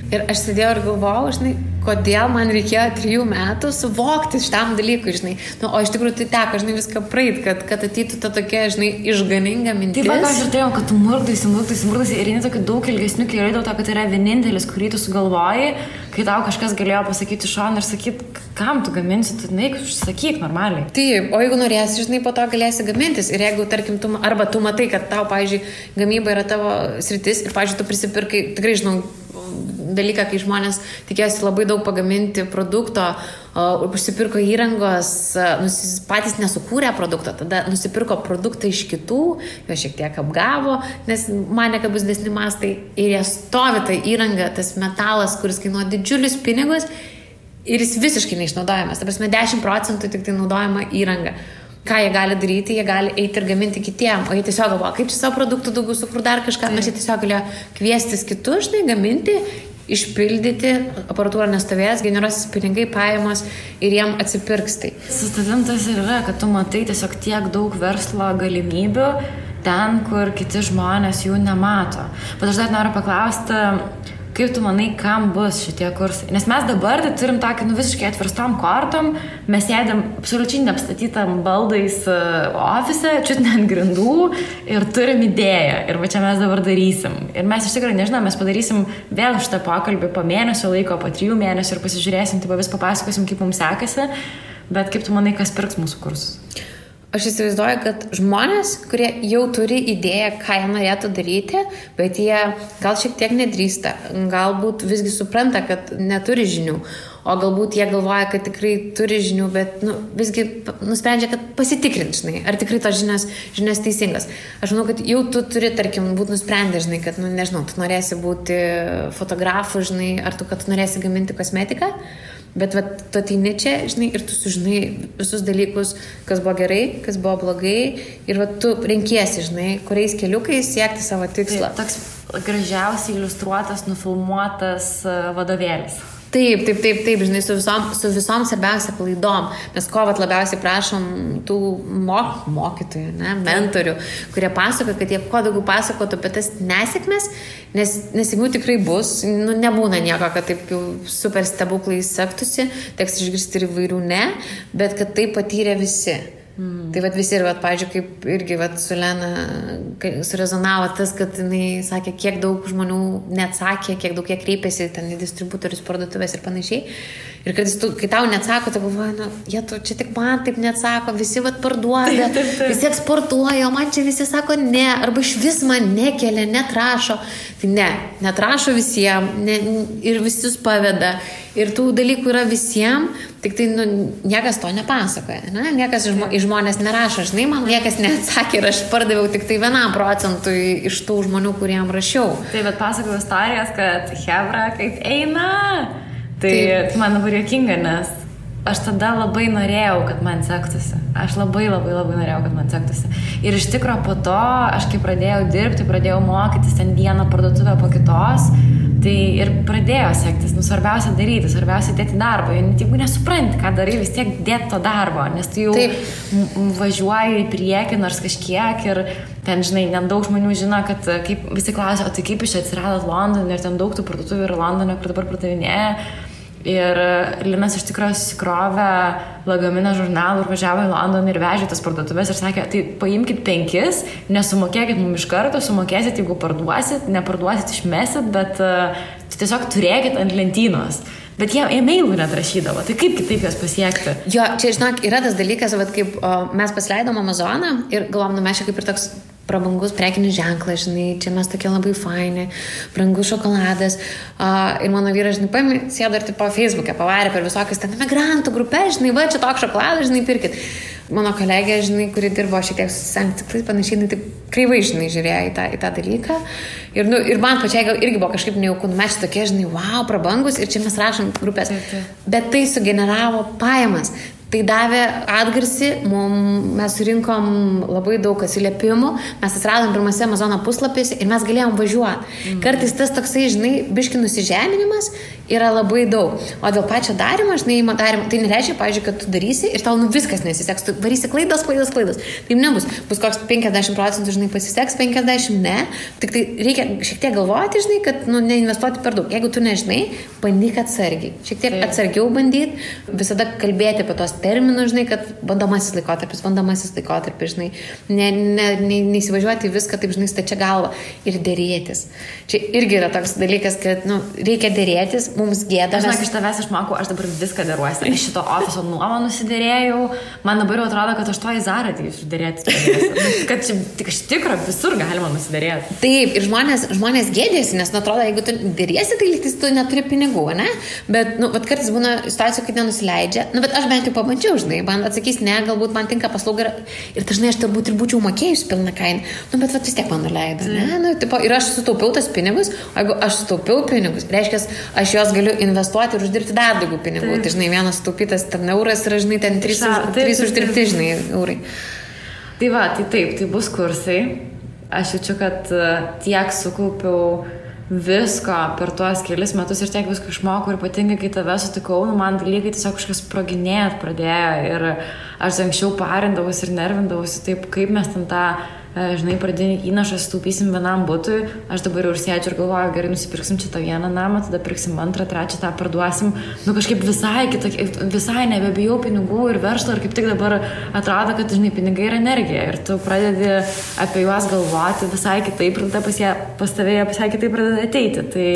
Ir aš sėdėjau ir galvojau, žinai, kodėl man reikėjo 3 metų suvokti šitam dalykui, žinai. Nu, o iš tikrųjų tai teko, žinai, viską praeit, kad ateitų ta tokia, žinai, išganinga mintis. Taip, aš ir turėjau, kad tu murdaisi ir eini tokiu daug ilgesniu keliu dėl to, kad tai yra vienintelis, kurį tu sugalvoji, kai tau kažkas galėjo pasakyti šoną ir sakyti, kam tu gaminsi, tu neik, sakyk normaliai. Taip, o jeigu norėsi, žinai, po to galėsi gamintis ir jeigu, tarkim, arba tu matai, kad tau, pavyzdžiui, gamyba yra tavo sritis ir, pavyzdžiui, tu prisipirkai, tikrai žinau, dalyką, kai žmonės tikėjosi labai daug pagaminti produkto, užsipirko įrangos, patys nesukūrė produkto, tada nusipirko produktą iš kitų, jo šiek tiek apgavo, nes mane, kad bus didesni mastai ir jie stovi tą įrangą, tas metalas, kuris kainuoja didžiulius pinigus ir jis visiškai neišnaudojamas. Ta prasme, 10% tik tai naudojama įranga. Ką jie gali daryti, jie gali eiti ir gaminti kitiem, o jie tiesiog galvoja, kaip čia savo produktų daugiau sukur dar kažką, nes jie tiesiog galėjo kviestis kitus, žinai, gaminti, išpildyti, aparatūra nestovės, generuosis pinigai, pajamos ir jiem atsipirks tai. Su tavim tas ir yra, kad tu matai tiesiog tiek daug verslo galimybių ten, kur kiti žmonės jų nemato. Bet aš dar noriu paklausti, kaip tu manai, kam bus šitie kursai? Nes mes dabar tai turim tokį visiškai atverstom kortom, mes sėdėm absoliučiai neapstatytam baldais ofise, čiut ne ant grindų ir turim idėją. Ir va čia mes dabar darysim. Ir mes iš tikrųjų, nežinau, mes padarysim vėl šitą pokalbį po mėnesio laiko, po 3 mėnesių ir pasižiūrėsim, tai vis papasakosim, kaip mums sekasi. Bet kaip tu manai, kas pirks mūsų kursus? Aš įsivaizduoju, kad žmonės, kurie jau turi idėją, ką jie norėtų daryti, bet jie gal šiek tiek nedrįsta, galbūt visgi supranta, kad neturi žinių, o galbūt jie galvoja, kad tikrai turi žinių, bet visgi nusprendžia, kad pasitikrint, žinai, ar tikrai tos žinios teisingas. Aš manau, kad jau tu turi, tarkim, būti nusprendę, žinai, kad, nežinau, tu norėsi būti fotografu, žinai, ar tu, kad tu norėsi gaminti kosmetiką. Bet tu ateini čia, žinai, ir tu sužinai visus dalykus, kas buvo gerai, kas buvo blogai ir tu renkiesi, žinai, kuriais keliukais siekti savo tikslą. Tai toks gražiausiai iliustruotas, nufilmuotas vadovėlis. Taip, žinai, su visom svarbiausia klaidom. Mes labiausiai prašom tų mokytojų, mentorių, kurie pasako, kad jie kuo daugiau pasakotų apie tas nesėkmes, nes jeigu tikrai bus, nebūna nieko, kad taip jau super stebuklai sektųsi, teks išgirsti ir įvairių bet kad tai patyrė visi. Tai visi ir, pavyzdžiui, kaip irgi su Lena surezonavo tas, kad jinai sakė, kiek daug žmonių neatsakė, kiek daug jie kreipėsi ten į distributorius, parduotuvės ir panašiai. Ir kai tau neatsako, tu galvoji, čia tik man taip neatsako, visi parduoda, visi eksportuoja, o man čia visi sako ne, arba iš vis man nekelia, netrašo. Tai netrašo visiems ir visus paveda. Ir tų dalykų yra visiems, tik tai niekas to nepasakoja. Niekas iš žmonės nerašo. Žinai, man niekas neatsakė ir aš pardaviau tik tai 1% iš tų žmonių, kuriem rašiau. Tai bet pasakojau istorijas, kad hebra kaip eina. Tai man labai juokinga, nes aš tada labai norėjau, kad man sektųsi. Aš labai norėjau, kad man sektųsi. Ir iš tikro po to, aš kai pradėjau dirbti, pradėjau mokytis ten vieną parduotuvę po kitos, tai ir pradėjo sektis. Svarbiausia daryti, svarbiausia dėti darbą. Jeigu nesupranti, ką darai, vis tiek dėti to darbo, nes tu jau važiuoji į priekį nors kažkiek ir ten, žinai, nedaug žmonių žino, kad kaip visi klausia, o tai kaip iš čia atsiradot Londone ir ten daug tų parduotuvių yra Londone, kur dabar pardavinėja. Ir Linas iš tikrųjų susikrovė lagaminą žurnalų ir važiavo į Londoną ir vežė tas parduotuvės ir sakė, tai paimkit 5, nesumokėkit mums iš karto, sumokėsit, jeigu parduosit, neparduosit, išmesit, bet tiesiog turėkit ant lentynos. Bet jie e-mailų net rašydavo, tai kaip kitaip jas pasiekti? Jo, čia, žinok, yra tas dalykas, vat, kaip mes pasileidom Amazoną ir galvom, mes čia kaip ir toks prabangus prekinis ženklas, žinai, čia mes tokie labai faini, brangus šokoladas. Ir mano vyras, žinai, paėmė, sėdo ir tipo Facebook'e, pavarė per visokius ten emigrantų grupės, žinai, va, čia toks šokoladas, žinai, pirkit. Mano kolegė, žinai, kuri dirbo šiek tiek susisanktikliai, panašiai, jinai taip kreivai, žinai, žiūrėjo į tą dalyką. Ir man pačiai gal irgi buvo kažkaip nejaukų, mes čia tokie, žinai, wow, prabangus ir čia mes rašom grupės. Bet tai sugeneravo pajamas. Tai davė atgarsį, mes surinkom labai daug atsiliepimų, mes atsiradom pirmose Amazono puslapėse ir mes galėjom važiuoti. Kartais tas toksai, žinai, biški nusižeminimas yra labai daug. O dėl pačio darimo, žinai, tai nereiškia, pavyzdžiui, kad tu darysi ir tau viskas nesiseks, tu varysi klaidas. Taip nebus. Bus koks 50%, žinai, pasiseks, 50% ne. Tik tai reikia šiek tiek galvoti, žinai, kad neinvestuoti per daug. Jeigu tu nežinai, bandyk atsargiai. Šiek tiek atsargiau bandyti, visada kalbėti apie tos terminus, žinai, kad bandomasis laikotarpis, žinai, neįsivažiuoti viską, taip, žinai, stačia galva ir dėrėtis. Čia irgi yra toks dalykas, kad, reikia dėrėtis, mums gėda. Žinok, iš tavęs išmokau, aš dabar viską dėruosi. Iš šito ofiso nuomą nusidėrėjau, man dabar jau atrodo, kad aš to į Zarą ateisiu dėrėtis. Kad čia tik iš tikro visur galima nusidėrėti. Taip, ir žmonės gėdėsi, nes atrodo, jeigu tu dėrėsi, tai lyg tu neturi pinigų, ne? Bet, vat kartais būna situacijų, kad nenusileidžia. Bet aš bent jau pabandžiau, žinai, man atsakys, ne, galbūt man tinka paslauga ir dažnai aš turbūt ir būčiau mokėjus pilną kainą. Bet vis tiek man nuleido, ne? Ir aš sutaupiau tas pinigus, o jeigu aš sutaupiau pinigus, reiškia, aš juos galiu investuoti ir uždirbti dar daugiau pinigų. Tai, žinai, vienas sutaupytas ten euras yra, žinai, ten 3 uždirbti, žinai, eurai. Tai va, tai taip, tai bus kursai. Aš jaučiu, kad tiek sukaupiau visko per tuos kelis metus ir tiek visko išmokau ir ypatingai, kai tave sutikau, man dalykai tiesiog kažkas sproginėt pradėjo ir aš anksčiau parindavausi ir nervindavausi taip, kaip mes ten tą, žinai, pradinį įnašą sutaupysim vienam butui, aš dabar jau ir sėdžiu ir galvoju, gerai, nusipirksim čia tą vieną namą, tada pirksim antrą, trečią, tą parduosim, kažkaip visai nebebijau pinigų ir verslo ir kaip tik dabar atrodo, kad, žinai, pinigai yra energija ir tu pradedi apie juos galvoti visai kitaip ir tada pas tavėje visai kitaip pradeda ateiti. Tai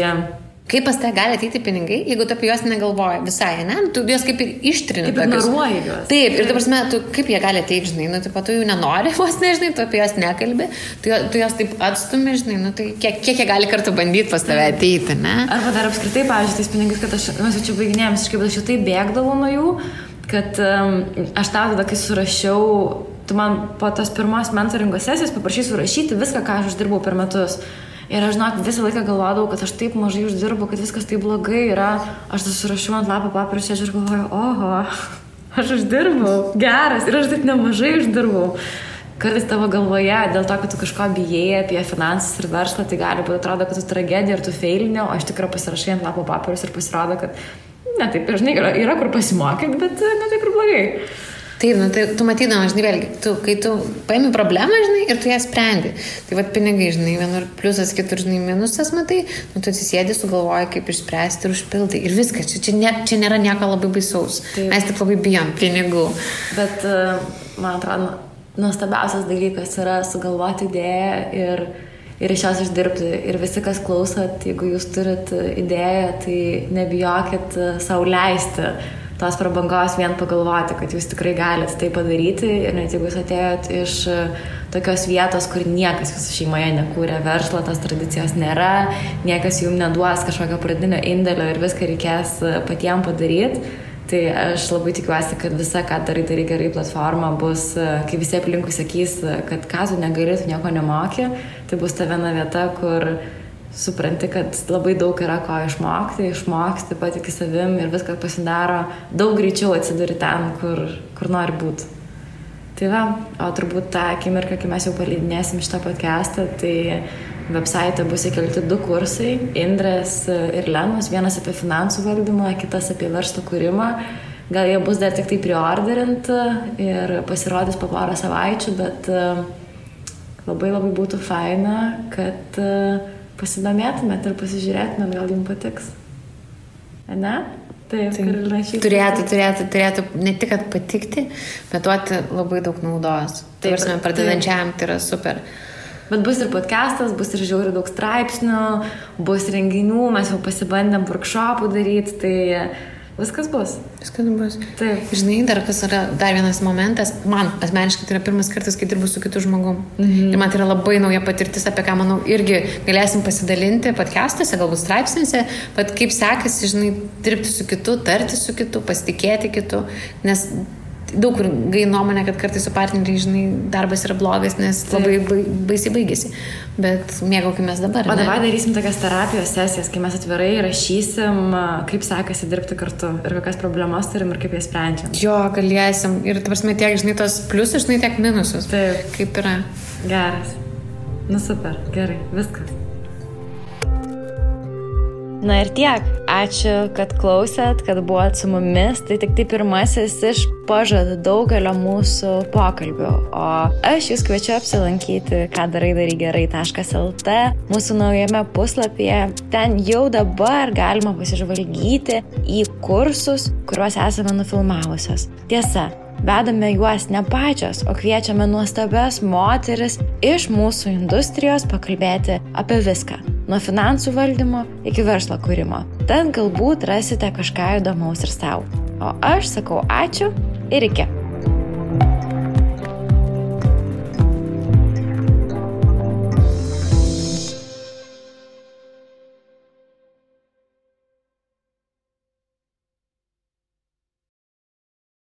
kaip pas tave gali ateiti pinigai, jeigu tu apie juos negalvoji visai, ne? Tu juos kaip ir ištrini. Kaip ignoruoji juos. Taip, ir dabar, tu kaip jie gali ateiti, žinai, tu jų nenori, vos nežinai, tu apie juos nekalbi, tu juos taip atstumi, žinai, tai kiek jie gali kartu bandyti pas tave ateiti, ne? Arba dar apskritai, pavyzdžiui, tais pinigais, kad mes jau čia baiginėjom, aš jau taip bėgdavau nuo jų, kad aš tau tada, kai surašiau, tu man po tos pirmos mentoringo sesijos paprašai surašyti viską, ką aš uždirbau per metus. Ir aš, žinok, visą laiką galvodavau, kad aš taip mažai uždirbu, kad viskas taip blogai yra. Aš tas surašiau ant lapo papirus ir galvoju, oho, aš uždirbau, geras, ir aš taip nemažai uždirbau. Kartais tavo galvoje, dėl to, kad tu kažko bijai apie finansus ir verslą, tai gali būti, atrodo, kad tu tragedija ir tu feilinė, o aš tikrai pasirašai ant lapo papirus ir pasirodo, kad, ne, taip, žinai, yra kur pasimokyti, bet ne taip ir blogai. Taip, tai tu matydama, žinai, vėlgi, kai tu paimi problemą, žinai, ir tu ją sprendi. Tai vat pinigai, žinai, vienur pliusas, kitur, žinai, minusas, matai, tu atsisėdi, sugalvoji, kaip išspręsti ir užpildai. Ir viskas, čia nėra nieko labai baisaus. Taip. Mes tik labai bijom pinigų. Bet, man atrodo, nuostabiausias dalykas yra sugalvoti idėją ir iš jos išdirbti. Ir visi, kas klausot, jeigu jūs turit idėją, tai nebijokit sau leisti tos prabangos vien pagalvoti, kad jūs tikrai galite tai padaryti ir net jeigu jūs atėjot iš tokios vietos, kur niekas jūsų šeimoje nekūrė verslo, tos tradicijos nėra, niekas jums neduos kažkokio pradinio indėlio ir viską reikės patiem padaryti, tai aš labai tikiuosi, kad visa, ką darai gerai platforma bus, kai visi aplinkui sakys, kad ką tu negali, tu nieko nemoki, tai bus ta viena vieta, kur supranti, kad labai daug yra ko išmoksti, patiki savim ir viskas pasidaro daug greičiau atsiduri ten, kur nori būti. Tai va, o turbūt tą akimirką, kai mes jau paleidinėsim šitą podcastą, tai website bus įkelti 2 kursai, Indrės ir Lenos, vienas apie finansų valdymą, kitas apie verslo kūrimą. Gal jie bus dar tik tai preorderint ir pasirodys po porą savaičių, bet labai būtų faina, kad pasidomėtumėt ir pasižiūrėtumėt, gal jums patiks. Ne? Taip, Karolina turėtų ne tik kad patikti, bet duoti labai daug naudos. Taip, pradedančiam tai yra super. Bet bus ir podcastas, bus ir žiauriai daug straipsnių, bus renginių, mes jau pasibandėm workshopų daryti, tai viskas bus. Taip. Žinai, dar vienas momentas, man asmeniškai tai yra pirmas kartas, kai dirbu su kitu žmogum. Ir man tai yra labai nauja patirtis, apie ką, manau, irgi galėsim pasidalinti podcastuose, galbūt straipsniuose, bet kaip sekasi, žinai, dirbti su kitu, tarti su kitu, pasitikėti kitu, nes daug kur gai nuomonė, kad kartais su partneriai, žinai, darbas yra blogas, nes labai baisiai baigėsi. Bet mėgaukimės dabar. O dabar darysim tokias terapijos sesijas, kai mes atvirai rašysim, kaip sekasi dirbti kartu ir kokias problemas turim ir kaip jas sprendžiam. Jo, galėsim. Ir, ta prasme, tiek, žinai, tos pliusus, žinai, tiek minusus. Taip. Kaip yra. Geras. Super, gerai, viskas. Na ir tiek. Ačiū, kad klausėt, kad buvot su mumis. Tai tik tai pirmasis iš pažadų daugelio mūsų pokalbių. O aš jūs kviečiu apsilankyti kadarai-daryk-gerai.lt mūsų naujame puslapyje. Ten jau dabar galima pasižvalgyti į kursus, kuriuos esame nufilmavusios. Tiesa, vedame juos ne pačios, o kviečiame nuostabias moteris iš mūsų industrijos pakalbėti apie viską. Nuo finansų valdymo iki verslo kūrimo. Ten galbūt rasite kažką įdomaus ir sau. O aš sakau ačiū ir iki.